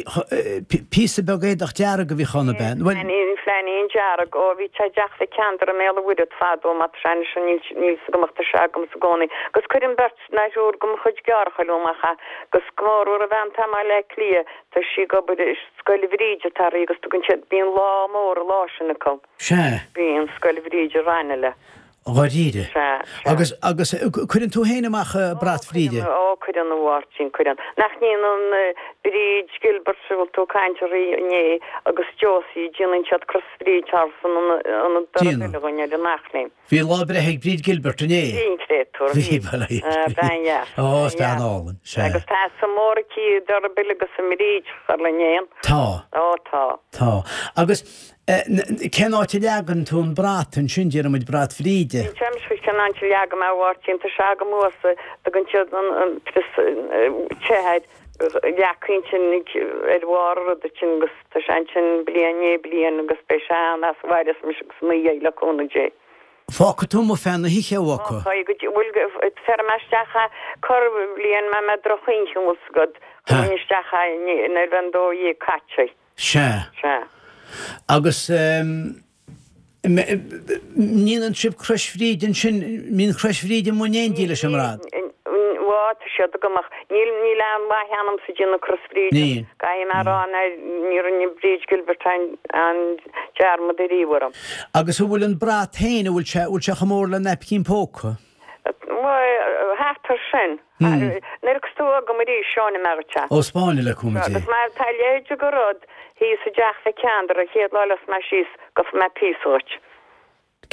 píosa beag éadach dearg a bhíodh ann, ab ea? Bhuel. Flainín dearg, ó, bhí sé i dteach Mhic Ceandair i mBéal an Mhuirthead fadó, má tá sé anois, níl 'fhios agam ach tá sé agamsa i gcónaí. Agus cuireann beirt ná triúr de mo chuid deartháireacha liom amach é, agus go mór mhór an bhean atá i mBaile Átha Cliath, tá sí ag obair i Scoil Bhríde atá uirthi agus tugann siad, bíonn lá mór an lá sin acu. Sea. Bíonn, Scoil Bhríde Raghnallach. Dháiríre. Sea, sea. Agus, agus cuireann tú féin amach brat Bhríde? Ó, cuireann, a Mháirtín, cuireann. Nach ndéanann Bríd Gilbert, a bhfuil tú ag caint uirthi inné, agus Josie, déanann siad Crois Bhríde thar san ionad Déanann. againn ar an Eachléim. Bhí lá breithe ag Bríd Gilbert inné. Bhí an créatúr. Bhí, bhuel, bhí. Bean dheas. Ó, is bean álainn, sea. Agus tá suim mór aici i dTurbhill agus i mBríd, char le n-aon. Tá. Ó, tá. Tá. Agus cén áit a leagann tú an brat ansin, déarfaidh muid brat Bhríde? Ní dheimhin cén áit a leagaim é, a Mháirtín, tá sé agam thuas, tugann siad an prios te air, leac ansin ar bharr an ruda sin agus tá sé ansin bliain i ndiaidh bliain agus beidh sé ann as a mhaireas mise agus ina dhiaidh le cúnamh Dé. Fágfaidh tú amuigh feadh na hoíche, a Mhaca. Fágfaidh go dtí, bhuel, bhéarfaidh mé isteach é corrbhliain má mbeidh droch-oíche an bhfuil 's agat, chuirfinn isteach é nuair a bheidh an 12 caite. Sea. Sea. Agus. ndéanann sibh Crois Bhríde ansin, mbíonn Crois Bhríde amuigh in éindí leis an mbrat? Bhuel, tá siad agam ach níl, níl aon mhaith ionamsa ag déanamh Crois Bhríde. Níl. Caithfidh mé a rá ná ní rinne Bríd Gilbert aon, aon dearmad ariamh orm. Agus an bhfuil an brat féin, an bhfuil sé, an bhfuil sé chomh mór le naipcín póca? Bhuel, thart ar sin. Nuair a thiocfas tú chugam arís, seoinfidh mé dhuit é. Ó 'spáine le cúnamh Dé. Agus má tá a leithéid de rud thíos i dteach Mhic Ceandair an chéad lá a luíos mé síos, gheobhaidh mé píosa dhuit.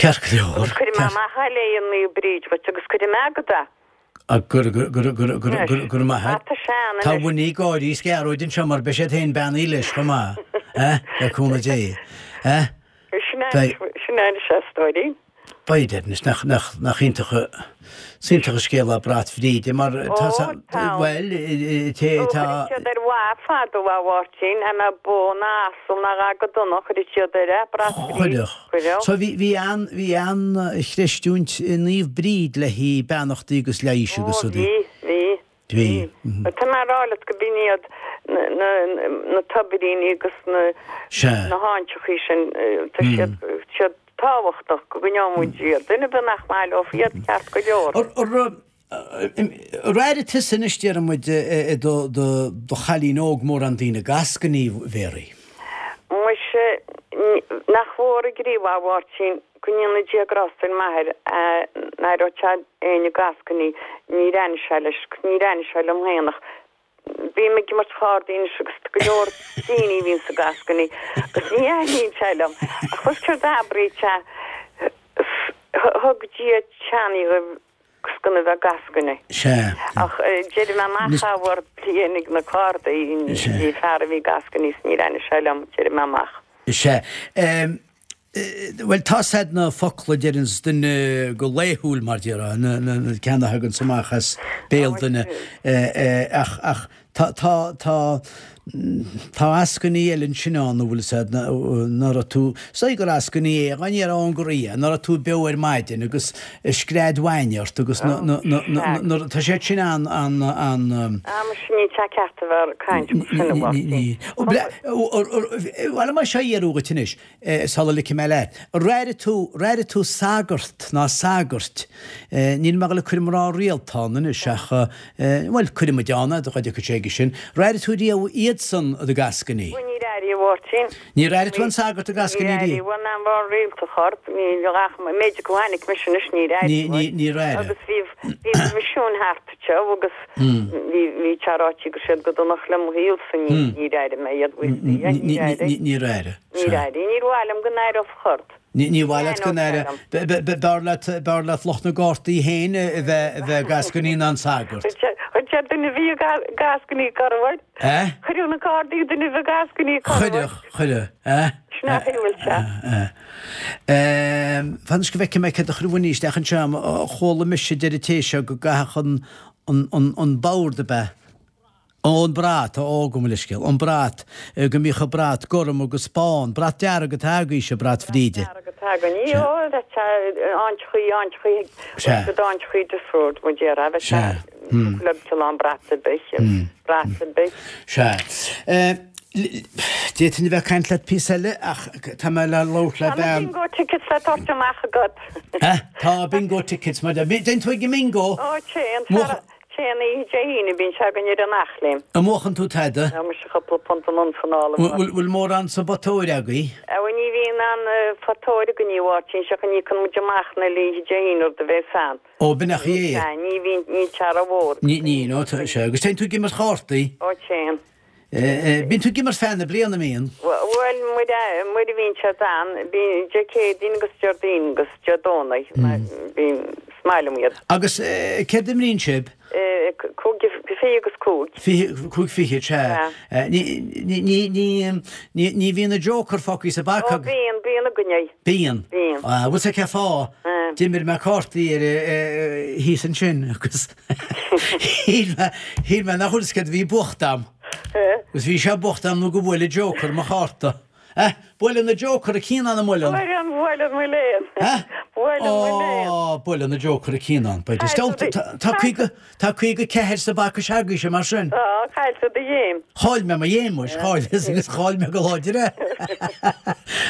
Ceart go leor. Agus cuirfidh mé amach é le Naomh Bríd dhuit agus cuirfidh mé agat é. Go raibh maith agat. Tá sé ann Tá anois. Winnie ag gáirí is Gearóid anseo mar beidh siad féin beannaithe leis chomh maith, le cúnamh Dé. Sin é anois é, a stóirín. Beidh, anois, nach, nach, nach iontach, is iontach an scéal é brat Bhríde, mar tá, Ó, tá. bhuel, té, Ó, tá. chuireadh siad ar mhaith fadó a Mháirtín, a mbeadh bó ná asal ná a dhath go dona, chuireadh siad air é, brat Bhríde. Chuireadh. Chuireadh. So bhí, bhí an, bhí an-chreistiúint i Naomh Bríd le haghaidh beannachtaí agus leighis agus Ó, rudaí. bhí, bhí. Bhí. Tá mé a rá leat go b'in iad na tobairíní agus na háiteachaí sin, tá siad siad tábhachtach go gcoinneoidh muid iad. Duine ar bith nach maith leo iad, ceart go leor. Ar airigh tusa anois, déarfaidh muid, i do chailín óg mórán daoine ag eascainí, Mhéaraí? Muise, nach mhór an gníomh a Mháirtín, Go ndéana Dia grásta ar m'athair ná raibh sé éinne ag eascainí, níor aithin sé leis, níor aithin sé liom féin ach bím ag imirt chárdaí anois agus tá go leor daoine a bhíonns ag eascainí agus ní aithníonn sé liom ach bhfuil céard a abraíonn sé thug Dia teannaí dhaoibh agus gan a bheith ag eascainí. Sea. Ach déarfaidh mé amach ábhar bliain ag na cárdaí bhí fear a bhí ag eascainí is níor aithin sé liom déarfaidh mé amach. Sea. Bhuel, tá's a'd na focla a deireanns duine go laethúil, mar déarfá, na ceanna a thaganns amach as béal duine, ach, ach tá, tá, tá, tá eascainí eile ansin ann, an bhfuil 'fhios a'd, ná raibh tú, is dóigh gur eascainí é, dá ndéarfá ón gcroí é, ná raibh tú beo ar maidin agus scread bhainne ort agus na, na, na, na, na, tá siad sin an, an, an. Ah, muise níl sé ceart a bheith ag caint mar sin, a Mháirtín. Bhuel, mar seo a iarradh dhuit anois, Sula ligfidh mé leat, ar airigh tú, ar airigh tú sagart ná sagairt, níl mé ag dul ag cur mná rialta ann anois ach, bhuel, cuirfidh muid ann é, dá dtiocfaidh sé aige sin, ar airigh tú riamh iad? iadsan ag gascainí? Bhuel, níor airigh, a Mháirtín. Níor airigh tú an sagart ag gascainí Níor airigh, bhuel, ná mar rialta chorp, ní ach méid go tháinig mise anois, níor airigh. Níor airigh. Agus bhí, bhí misiún thart anseo agus bhí, bhí sé ráite go raibh siad go dona le mo shaolsa, níor airigh mé iad, bhuel, níor airigh. Níor airigh. Níor airigh. Níor mhaith liom go n-aireofá chorp. Ní mhaith leat go n-aireofá. B'fhearr leat, b'fhearr leat lucht na gcártaí féin a bheith, a bheith ag gascainí ná an sagart. Chuir sé duine a bhí ag gascainí corruair. Eh? Chuireadh na cártaí duine a bhí ag gascainí corruair. Chuireadh, chuireadh, eh? Sin é a bhfuil sé. Eh. Fan anois go bhfeicfidh mé céard a chuir Winnie isteach anseo. Chuala mise deir an té seo go gcaithfeadh an, an, an, an bord ab ea? Ó, an brat, ó, gabh mo leithscéal, an brat, go mbíodh an brat gorm agus bán, brat dearg atá agaibhse, brat Bhríde. Brat dearg atá againn, ní, ó, bheadh sé áintchaí, áintchaí, Sea. bheadh áintchaí difriúil, mo déarfá, bheadh sé Sea, hmm. le cineál brat ar bith, brat ar bith. Sea. D'fhéadfainn a bheith ag caint leat píosa eile ach tá mé le labhairt le Tá na bean. bingo tickets le tabhairt amach agat. Eh? Tá bingo tickets, mar déan tú ag an mbingo? Ó, téann, Téann oíche Dé hAoine, bíonn sé againn ar an Eachléim. An mbuachann tú tada? Tá mise cúpla punt anonn 's anall. Bhfuil mórán sa bpota óir agaibh? Bhuel ní bhíonn aon phota óir againn a Mháirtín, seachain íocann muid amach na oíche Dé hAoine rud a bhéas ann. Ó b'in é é. Sea, ní bhíonn, níl sé ró-mhór. Ní, ní, nó tá sé. Agus téann tú ag imirt chártaí? Ó téann. Bíonn tú ag imirt feadh na bliana, an mbíonn? Bhuel, nuair a bhíonn siad ann, bíonn Dé Céadaoin agus Déardaoin agus Dé Domhnaigh, bíonn, is maith liom iad. Agus céard a imríonn sibh? 25 agus 5. 25 fichead, sea. Ní, ní, ní, ní bhíonn an Joker fágtha sa bpaca? Ó bíonn, bíonn againn é. Bíonn? Bíonn. Bhfuil 's agat cén fáth? D'imir mé cártaí ar, thíos ansin agus. Shíl mé, shíl mé nach bhfuil 's céard a bhí buachta a'm. Agus bhí sé buachta a'm nó go bhuail an Joker mo chárta. Eh, buaileann an Joker an cianán an mbuaileann? Buaileann, buaileann mo léan. Eh? Buaileann mo léan. Ó, buaileann an Joker an cianán. Beidh Tá, tá 50, tá 54 sa bpaca s'agaibhse mar sin. Tá, chaill tú do ghéim. Chaill mé mo ghéim, muis, chaill, agus chaill mé go láidir é.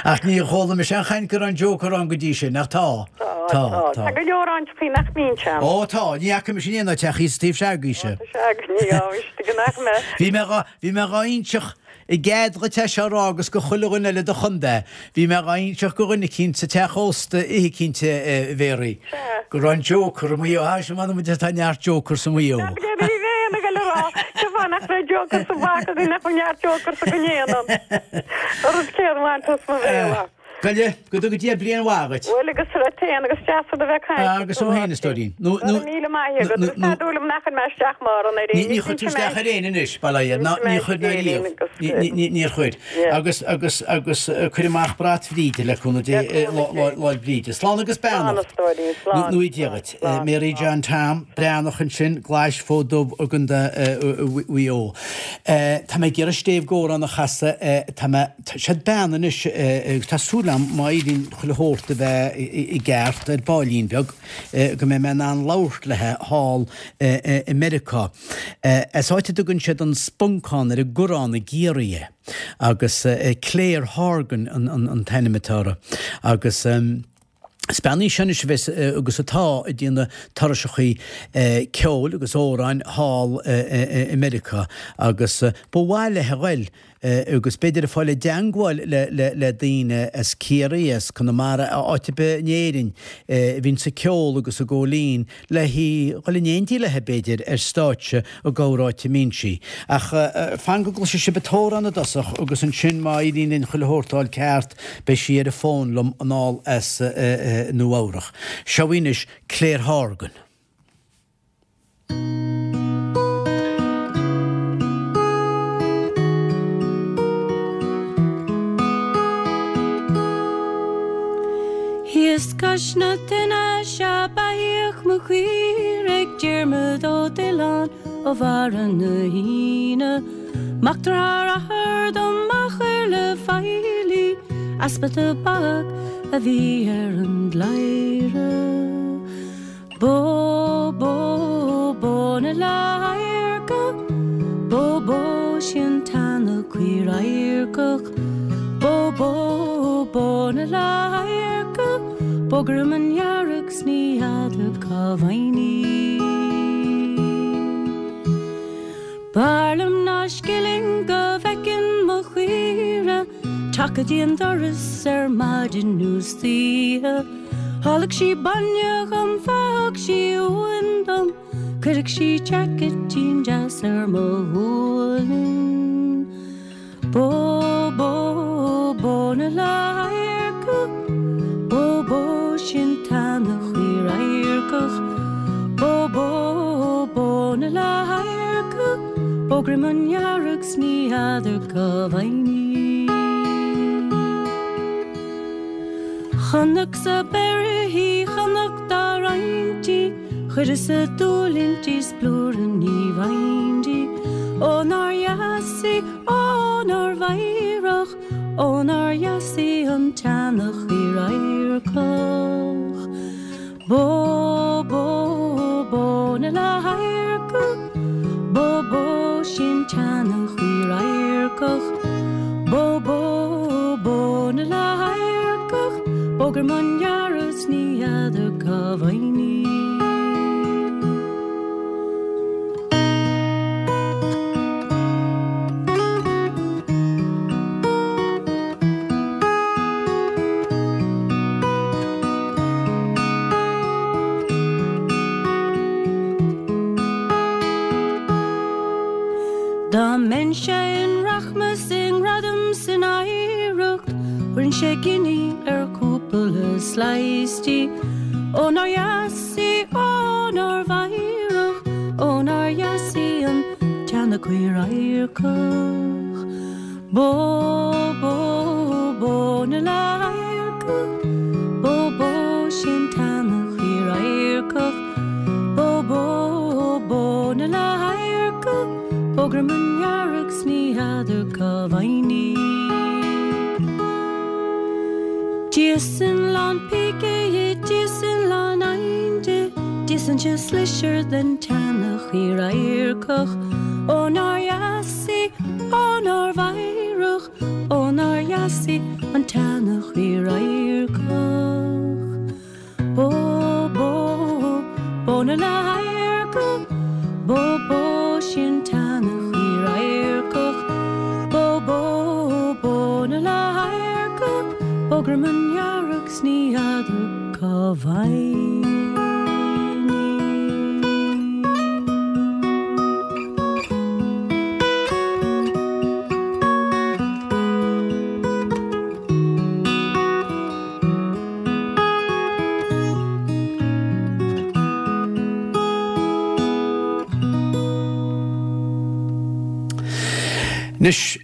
Ach ní chuala mise aon chaint go raibh an Joker ann go dtí sin, ach tá. Tá, tá. Tá go leor áiteachaí nach mbíonn sé ann. Ó, tá. Ní fhaca mise in aon áit ach thíos taobh s'agaibhse. Ó, tá sé againn, ní fhaca nach mé. Bhí mé dhá, bhí mé dhá inseacht i gcead dhuit é seo a rá agus go chuile dhuine eile do chontae. Bhí mé dhá inseacht go dhuine eicínt sa teach ósta oíche eicínt a Mhéaraí. Sea. Go raibh an Joker i Maigh Eo. Á, sin m'anam duit tá neart Jokers i Maigh Eo. Nach bhfuil ní bheinn ag dul a rá, cén fáth nach raibh Joker sa bpaca againn nach bhfuil neart Jokers againn aon. An rud céanna bhain tú as mo bhéal. Goile, go dtuga Dia bliain mhaith dhuit. Bhuel agus duit féin agus deas a bheith ag caint leat. Agus thú féin, a stóirín. Nó, nó. Go raibh míle maith agat. Agus tá dúil agam nach chuir mé isteach mórán ar éinne. Ní chuir tú isteach ar éinne anois, bail ó Dhia. Ná, ní chuir ná riamh. Níor chuir. Agus, agus, agus cuir amach brat Bhríde le cúnamh Dé, Lá'l Bríde. Slán agus Slán, a beannacht. stóirín, slán. Nó Dia dhuit. Mary John Tom, Breathnach ansin, Glais Fód Dubh i gContae Mhaigh Eo. Tá mé ag iarraidh stéibh gcomhrán a chasadh, tá mé, Siod bean anois agus tá súil agam má éiríonn chuile shórt a bheith i gceart ar baillín beag go mbeidh mé in ann labhairt léi thall i Meiriceá. As áit a dtugann siad an Spuncán ar an gCurrán i gCiarraí é agus Claire Horgan an t-ainm atá uirthi agus. Is bean í seo anois a bheas agus atá ag déanamh turaiseachaí ceoil agus amhráin thall i Meiriceá agus ba mhaith léi a ghoil agus b'fhéidir ag fáil i dteangmháil le daoine as Ciarraí, as Conamara, áit ar bith in Éirinn a bhíonns ag ceol agus ag gabháil fhoinn le hí dhul in éindí léi b'fhéidir ar stáitse i gcorr áit a mbíonn sí. Ach fan go gcloisfidh sibh an t-amhrán i dtosach agus ansin má éiríonn linn chuile shórt a fháil ceart beidh sí ar an bhfón liom anall as Nua Eabhrach. Seo í anois Claire Horgan. Thíos cois na tine 'sea beathaíodh mo chaoirigh Diarmuid Ó Diollán ó Bharra na hAoine Mac dearthár athar dom a chuir le feighlí Easpa tobac a bhí ar an gcladhaire. Bó, bó, bó na ladhairce, bó, bó, sin teannadh caor adharcach. Bó, bó, bó na ladhairce, bó ghreamandhearg 's ní fheadar cá bhfaighinn í. B'fhearr liom ná scilling go. mo chaoire Teacht go dtí an doras ar maidin nó istoíche Ólfadh sí bainne dhom fágfadh sí uain dom Cuirfeadh sí jacketín deas ar mo ghualainn Bó, bó, bó na ladharca Bó, bó, sin t-eanach radharcach Bó, bó, bó na ladharca Bó greamandhearg 's ní fheadar cá bhfaighinn í. Chonacsa beirthe í, chonac dá roinnt í, Chuireas-sa dúil inti 's plúr ní bhfaighinn di. Ó nár dheas í, ó nár mheidhreach, Ó nár dheas í an t-eanach radharcach. Bó, bó, bó na ladharca, Bó, bó, sin t-eanach radharcach. Bó, bó, bó na ladharcach, Bó greamandhearg 's ní fheadar cá bhfaighinn í. Dá mbeinnse i rachmas i ngradam 's in oidhreacht, Thabharfainnse giní ar chúpla slice di. Ó nár dheas í, ó nár mheidhreach, Ó nár dheas í an t-eanach radharcach. Bó, bó, bó na ladharca, Bó, bó, sin t-eanach radharcach. Bó, bó, bó na ladharca, Bó greamandhearg 's ní fheadar cá bhfaighinn í. D'íosfainn lán píce dhi, d'íosfainn lán oighinn di, D'íosfainnse slisir den t-eanach radharcach. Ó nár dheas í, ó nár mheidhreach, ó nár dheas í an t-eanach radharcach. Bó, bó, bó na ladharca, bó, bó, sin t-eanach radharcach. Bó, bó, bó na ladharca, bó greamandhearg 's ní fheadar cá bhfaighinn í. Anois,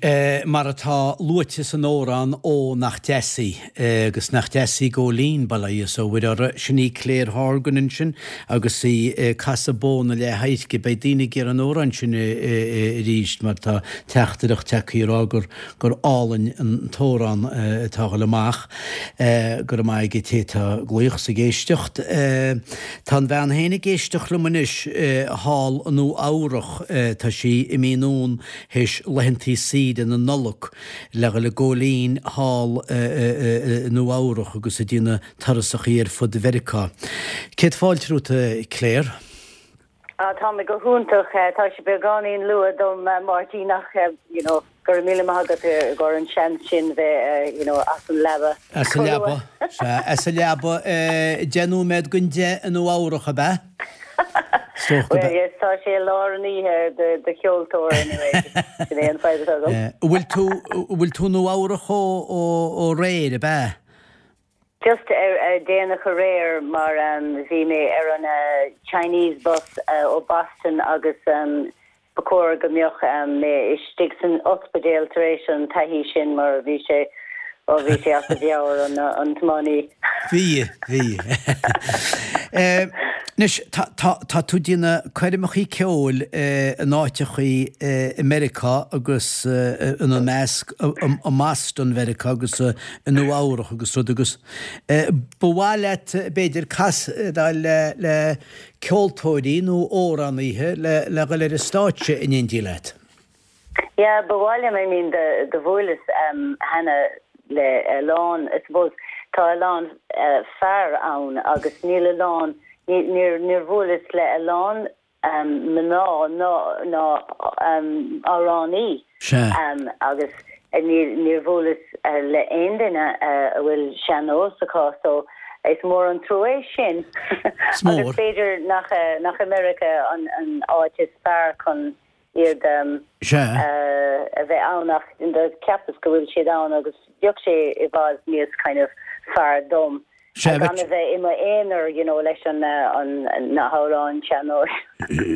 mar atá luaite san amhrán Ó nach deas í, agus nach deas í Góilín, bail ó Dhia is ó Mhuire uirthi, sin í Claire Horgan ansin agus í ag casadh Bó na Leath-Adhairce. Beidh daoine ag iarraidh an amhrán sin arís mar tá teachtaireacht tagtha ag rá gur gur álainn an t-amhrán atá a dhul amach. Go raibh maith ag an té atá ag glaoch is ag éisteacht. Tá an bhean féin ag éisteacht liom anois thall i Nua Eabhrach. Tá sí imithe anonn théis laethantaí saoire na Nollag le dhul ag Góilín thall i Nua Eabhrach agus ag déanamh turasachaí ar fud Mheiriceá. Céad fáilte romhat, a Claire. Ah, tá mé go hiontach. Tá sé beagáinín luath dom, Máirtín, ach, you know, go raibh míle maith agat i gcomhair an seans sin bheith, you know, as an leaba. As an leaba, sea, as an leaba, 10 nóiméad don 10 i Nua Eabhrach, ab ea? Well, yes, tá sé i lár an oíche do, do cheoltóir anyway. Sin é an fadhb atá agam. Bhfuil tú, bhfuil tú i Nua Eabhrach ó, ó, ó aréir, ab ea? Just ar déanach aréir mar bhí mé ar an Chinese bus ó Boston agus ba chóir go mbeadh mé istigh san ospidéal tar éis an taithí sin mar bhí sé, ó bhí sé as a mheabhair an tiománaí. Bhí, bhí. Anois, tá, tá, tá tú ag déanamh coirmeachaí ceoil in áiteachaí i Meiriceá agus ina measc i mBoston Mheiriceá agus i Nua Eabhrach agus rud agus ba mhaith leat b'fhéidir casadh le le ceoltóirí nó amhránaithe le le dhul ar an stáitse in éindí leat. Yeah, ba mhaith liom, I mean do do bhuaileas cheana le a lán, I suppose tá a lán fear ann agus níl a lán, níor níor bhuaileas le a lán mná ná ná amhránaí. Sea. Agus. Níl, níor bhuaileas le aon duine a bhfuil sean-nós acu so is mór an trua é sin. Is mór. Agus b'fhéidir nach, nach i Meiriceá an, an áit is fearr chun iad Sea. a bheith ann ach cheapas go bhfuil siad ann agus bheadh sé i bhfad níos kind of fearr dom Sea, gan a bheith i m'aonar you know leis an na hamhráin sean-nóis.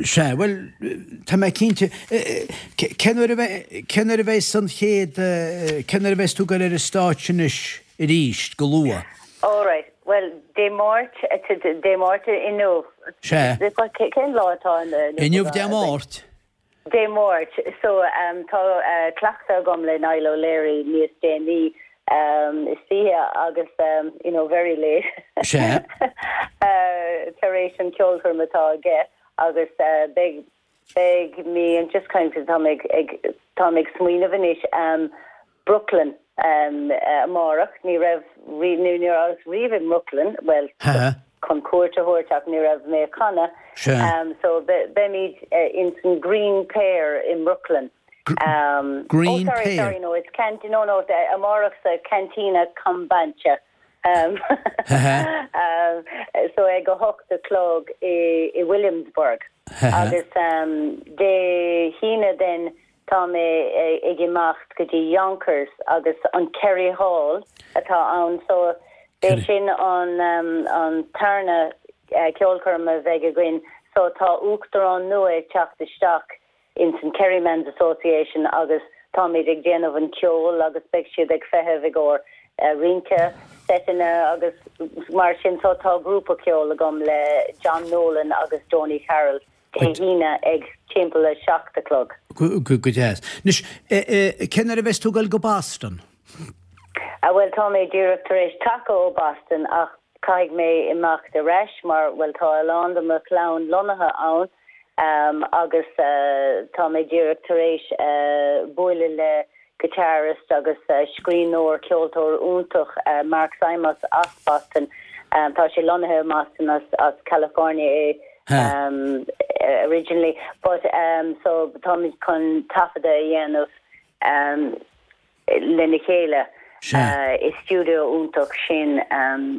Sea, bhuel, tá mé cinnte. Cén uair a bheidh, cén uair a bheidh an chéad, cén uair a bheas tú ag dul ar an stáitse anois arís, go luath? All right, bhuel, Dé Máirt, Dé Máirt inniu. Sea. Cén lá atá inniu? Inniu Dé Máirt. Dé Máirt. So, tá cleachtadh agam le Niall O'Leary níos déanaí istoíche agus, you know, very late. Sea. Tar éis an ceolchoirm atá aige agus beidh, beidh mé just kind of, tá mé ag, tá mé ag smaoineamh anois, Brooklyn amárach. Ní raibh, ní rabhas riamh i mBrooklyn, bhuel, chun cuairt a thabhairt ach ní raibh mé ag canadh. So beimid ins an Green Pear i mBrooklyn. Green oh sorry, Pear? sorry, no, it's Cant, no, no, amárach sa Cantina Kombucha. So ag a hocht a chlog i Williamsburg. Agus Dé hAoine then Tá mé ag imeacht go dtí Yonkers agus an Kerry Hall atá ann so b'é sin an an tarna ceolchoirm a bheidh againn so tá uachtarán nua ag teacht isteach ins an Kerryman's Association agus táimid ag déanamh an ceol agus beidh siad ag feitheamh i gcomhair rince, seiteanna agus mar sin so tá grúpa ceoil agam le John Nolan agus Donie Carroll. Dé hAoine ag timpeall a 7 a chlog. Go deas. Anois, cén uair a bheas tú ag dul go Boston? Bhuel, tá mé díreach tar éis taca ó Boston ach caithfidh mé imeacht ar ais mar, bhuel, tá a lán de mo chlann lonnaithe ann agus tá mé díreach tar éis buaileadh le guitarist agus scríbhneoir, ceoltóir iontach Mark Simos as Boston. Tá sé lonnaithe i mBoston as California é originally but so táimid chun taifeadadh a dhéanamh lena chéile i stiúideo iontach sin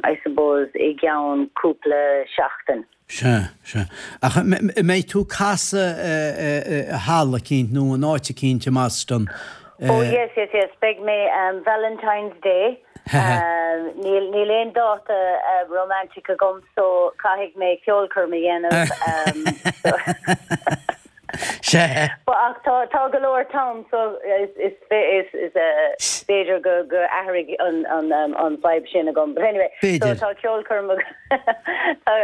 I suppose i gceann cúpla seachtain. Sea, sea. Ach an mbeidh tú ag casadh i halla eicínt nó in áit eicínt i mBoston? Oh yes, yes, yes. Beidh mé Valentine's Day. Níl, níl aon dáta romantic agam so caithfidh mé ceolchoirm a dhéanamh. Sea. But ach tá, tá go leor t-am so is, is, is, is b'fhéidir go, go athraigh an, an, an vibe sin agam. But anyway, so B'fhéidir. tá ceolchoirm tá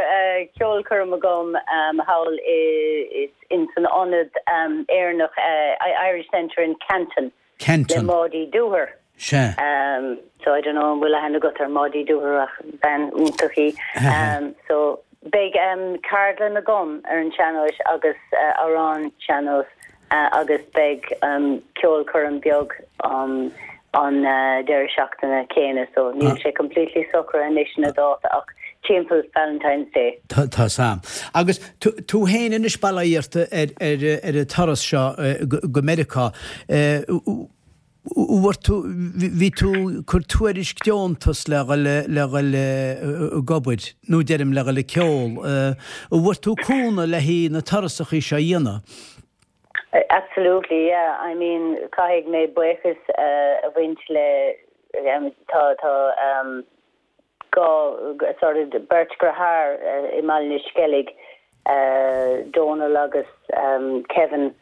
ceolchoirm agam thall i, in san ionad Éireannach, Irish Centre in Canton le Canton. Maudie Dooher. Sea. So I don't know an bhfuil aithne agat ar Maudie Dooher ach bean iontach í. So beidh ceardlann agam ar an sean-nós agus amhráin sean-nós agus beidh ceolchoirm beag an deireadh seachtaine céanna so níl sé completely socraithe anois na dáta ach timpeall Valentine's Day. Tá's a'm. Agus tú féin anois bail ó Dhia ort ar an turas seo go Meiriceá. Bhfuair tú, bhí tú ag cur tuairisc deontas le dhul, le dhul ag obair, nó deirim le dhul ag ceol. An bhfuair tú cúnamh le haghaidh na turasachaí seo a dhéanamh? Absolutely, yeah. I mean, caithfidh mé buíochas a bhaint le, tá, tá, dhá, sort of, beirt dheartháir i mBaile na Sceilg, Dónal agus Kevin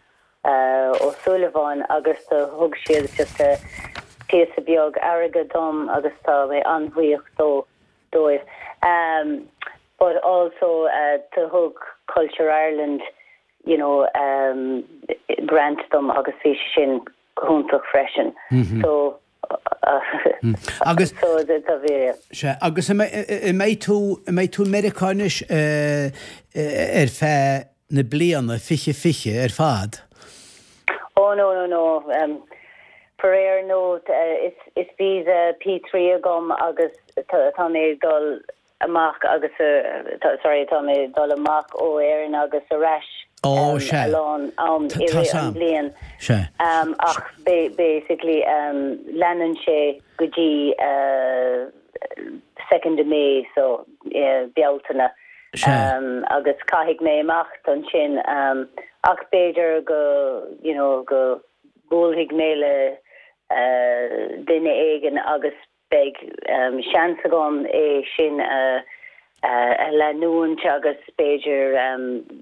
Ó Súilleabháin agus do thug siad just píosa beag airgead dom agus tá mé an-bhuíoch dó, dóibh. But also do thug Culture Ireland, you know, grant dom agus bhí sé sin go hiontach freisin. So Agus. So tá bhí. Sea, agus an mbeidh tú, an mbeidh tú i Meiriceá anois ar feadh na bliana 2020 ar fad? Oh no, no, no. Faraor no, is visa P3 agam agus tá mé ag dul amach agus, sorry, tá mé ag dul amach ó Éirinn agus ar ais. Ó, sea. a lán am i Tá rith 's an a'm. bhliain. Sea. Ach basically leanann sé go dtí second of May so Bealtaine. Sea. Agus caithfidh mé imeacht ansin ach b'fhéidir go you know go buailfidh mé le duine éigin agus beidh seans agam é sin a leanúint agus b'fhéidir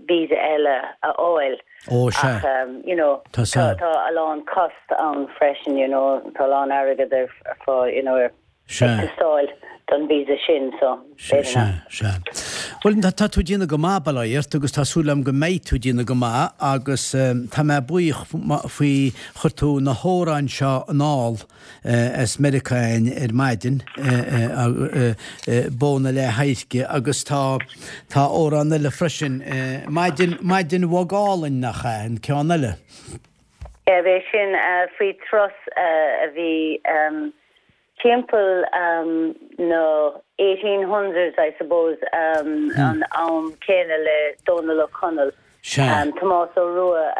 visa eile a fháil. Ó, sea. Ach you know Tá tá a lán cost ann freisin you know tá a lán airgead ar fáil you know ar Sea. ag teastáil don visa sin so Sea, b'fhéidir nach. sea, sea. Bhuel, tá tú ag déanamh go maith, bail ó Dhia ort, agus tá súil agam go mbeidh tú ag déanamh go maith agus tá mé buíoch faoi chuir tú na hamhráin seo anall as Meiriceá againn ar maidin, Bó na Leath-Adhairce agus tá tá amhrán eile freisin, Maidin, Maidin Bhog Álainn, nach ea, an ceann eile? Yeah, b'é sin faoi turas a bhí timpeall na 1800s I suppose, an am céanna le Dónal Ó Conaill. Sea. Tomás Ó Rua,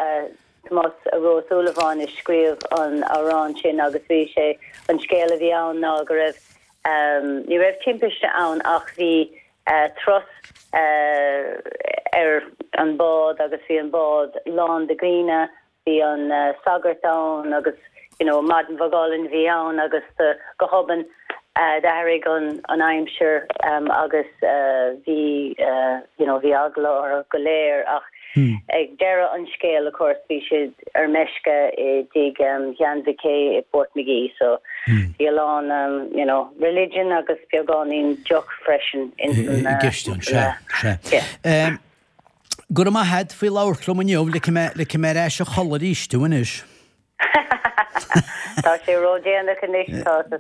Tomás Rua Ó Súilleabháin a scríobh an amhrán sin agus bhí sé, an scéal a bhí ann ná go raibh, ní raibh timpiste ann ach bhí turas ar an bád agus bhí an bád lán de dhaoine, bhí an sagart ann agus you know maidin bhog álainn a bhí ann agus go hobann d'athraigh an aimsir agus bhí you know bhí eagla orthu go léir ach ag deireadh an scéil of course bhí siad ar meisce i dtigh Shean Mhic i Portmagee so bhí a lán you know religion agus beagáinín deoch freisin ins an i gceist ann, sea, sea. Yeah. Go raibh maith agat faoi labhairt liom inniu, ligfidh mé, ligfidh mé ar ais a chodladh arís tú anois. Tá sé ródhéanach anois, tá, tá,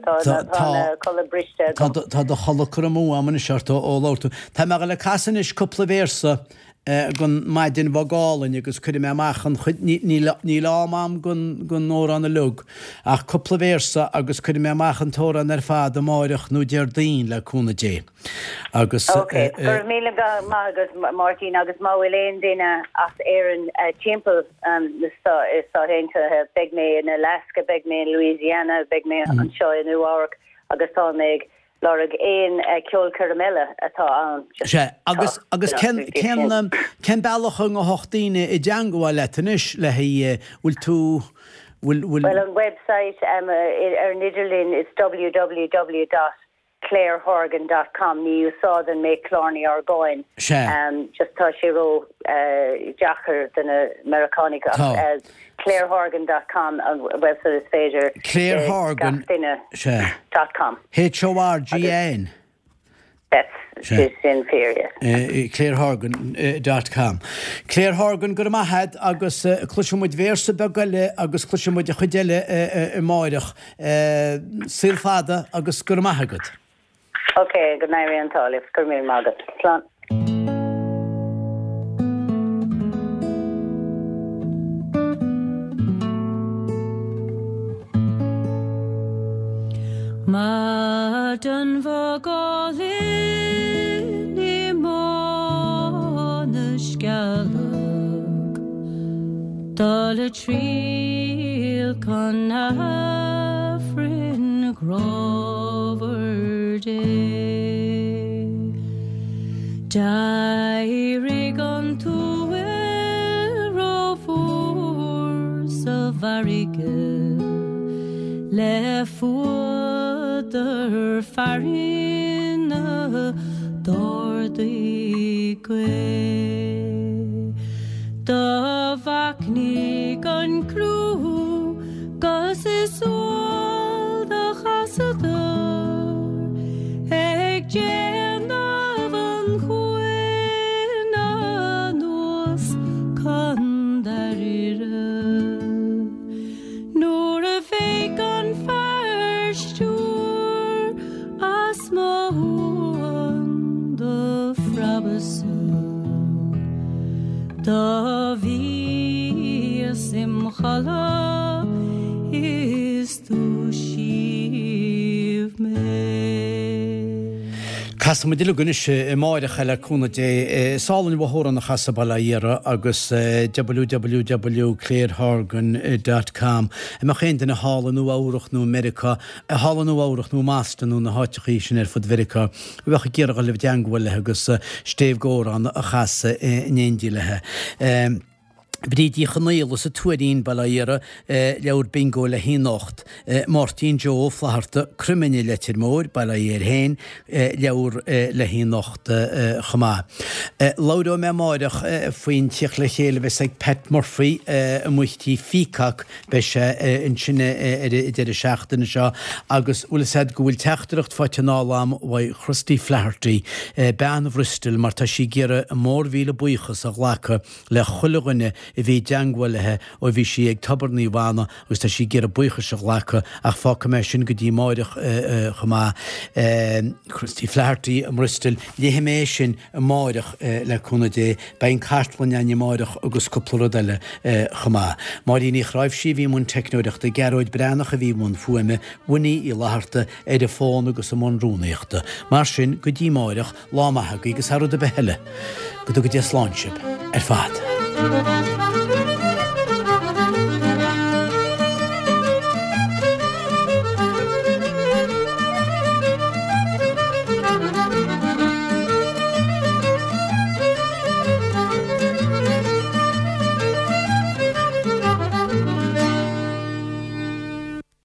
tá an codladh briste agam. Tá do chodladh curtha amú agam anois ort ó labhair tú. Tá mé ag dul ag casadh anois cúpla véarsa den Maidin Bhog Álainn agus cuirfidh mé amach an chuid, níl, níl am a'm don, don amhrán uilig, ach cúpla véarsa agus cuirfidh mé amach an t-amhrán ar fad amáireach nó Déardaoin le cúnamh Dé. Agus. Ok, go raibh míle maith agat Máirtín agus má bhfuil aon duine as Éirinn timpeall na Stáit Aontaithe, beidh mé in Alaska, beidh mé in Louisiana, beidh mé anseo i Nua Eabhrac agus tá mé ag lorg aon ceolchoirm eile atá ann. Sea, agus agus cén cén cén bealach a ngabhfadh daoine i dteangmháil leat anois le haghaidh, bhfuil tú, bhfuil, bhfuil. Bhuel an website ar an idirlíon is www dot clarehorgan dot com ní úsáideann mé Killarney Orgáin Sea. just tá sé ró deacair do na Meiriceánaigh ach Tá. clarehorgan dot com an website is féidir Clare le Horgan, gach duine sea. dot com. H O R G A N. That's Sea. sin fíor, yes. Clarehorgan dot com. Clare Horgan, go raibh maith agat agus cloisfidh muid véarsa beag eile agus cloisfidh muid an chuid eile amáireach. Saol fada agus go raibh maith agat. Ok, go n-éirí an t-ádh libh. Go raibh míle maith agat. Slán. Maidin bhog álainn i mBá na Scealg. Dul a triall chun Aifrinn ghrámhair Dé. D'éirigh an t-uaill rófhuar sa bhfarraige le fuadar fearthainne d'ardaigh gaoth. Do mhachnaigh an crú 'gus is umhal do chasadar ag déanamh an chuain anuas chun Dáiríre. Nuair a bheidh an fear stiúir as mo uain do phreabadh-sa Do bhíos im chodladh is. Casfaidh muid uilig anois amáireach le cúnamh Dé. Is álainn an t-amhrán a chasadh Baile Átha Iara agus www clairehorgan dot com. An mbeadh aon duine thall i Nua Eabhrach nó i Meiriceá, thall i Nua Eabhrach nó i mBoston nó na háiteachaí sin ar fud Mheiriceá a bheadh ag iarraidh dhul i dteangmháil léi agus stéibh d'amhrán a chasadh in éindí léi. Bríd Uí Chonaola sa Tuairín, Baile Átha Iara, leabhar bingo le haghaidh anocht. Máirtín Joe Ó Flatharta, Croimine, Leitir Móir, Baile Átha Fhirdh féin, leabhar le haghaidh anocht chomh maith. Labhróidh mé amáireach faoin tíocht le chéile a bheas ag Pat Murphy amuigh tí Pheacock, beidh sé ansin ar an deireadh seachtaine seo agus bhfuil fhios a'd go bhfuil teachtaireacht faighte anall a'm uaidh Christy Flaherty, bean Bhristol, mar tá sí ag iarraidh a mórmhíle buíochas a ghlacadh le chuile dhuine a bhí i dteangmháil léi ó bhí sí ag Tobar Naomh Anna agus tá sí ag iarraidh buíochas a ghlacadh ach fágfaidh mé sin go dtí amáireach chomh maith. Christy Flaherty i mBristol, léifidh mé é sin amáireach le cúnamh Dé. Beidh an cartlann againn amáireach agus cúpla rud eile chomh maith. Máirín Ní Chráimhsí a bhí i mbun teicneoireachta, Gearóid Breathnach a bhí i mbun fuaime, Winnie Uí Fhlatharta ar an bhfón agus i mbun rúnaíochta. Mar sin, go dtí amáireach, Lá maith agaibh agus thar rud ar bith eile, go dtuga Dia slán sibh ar fad.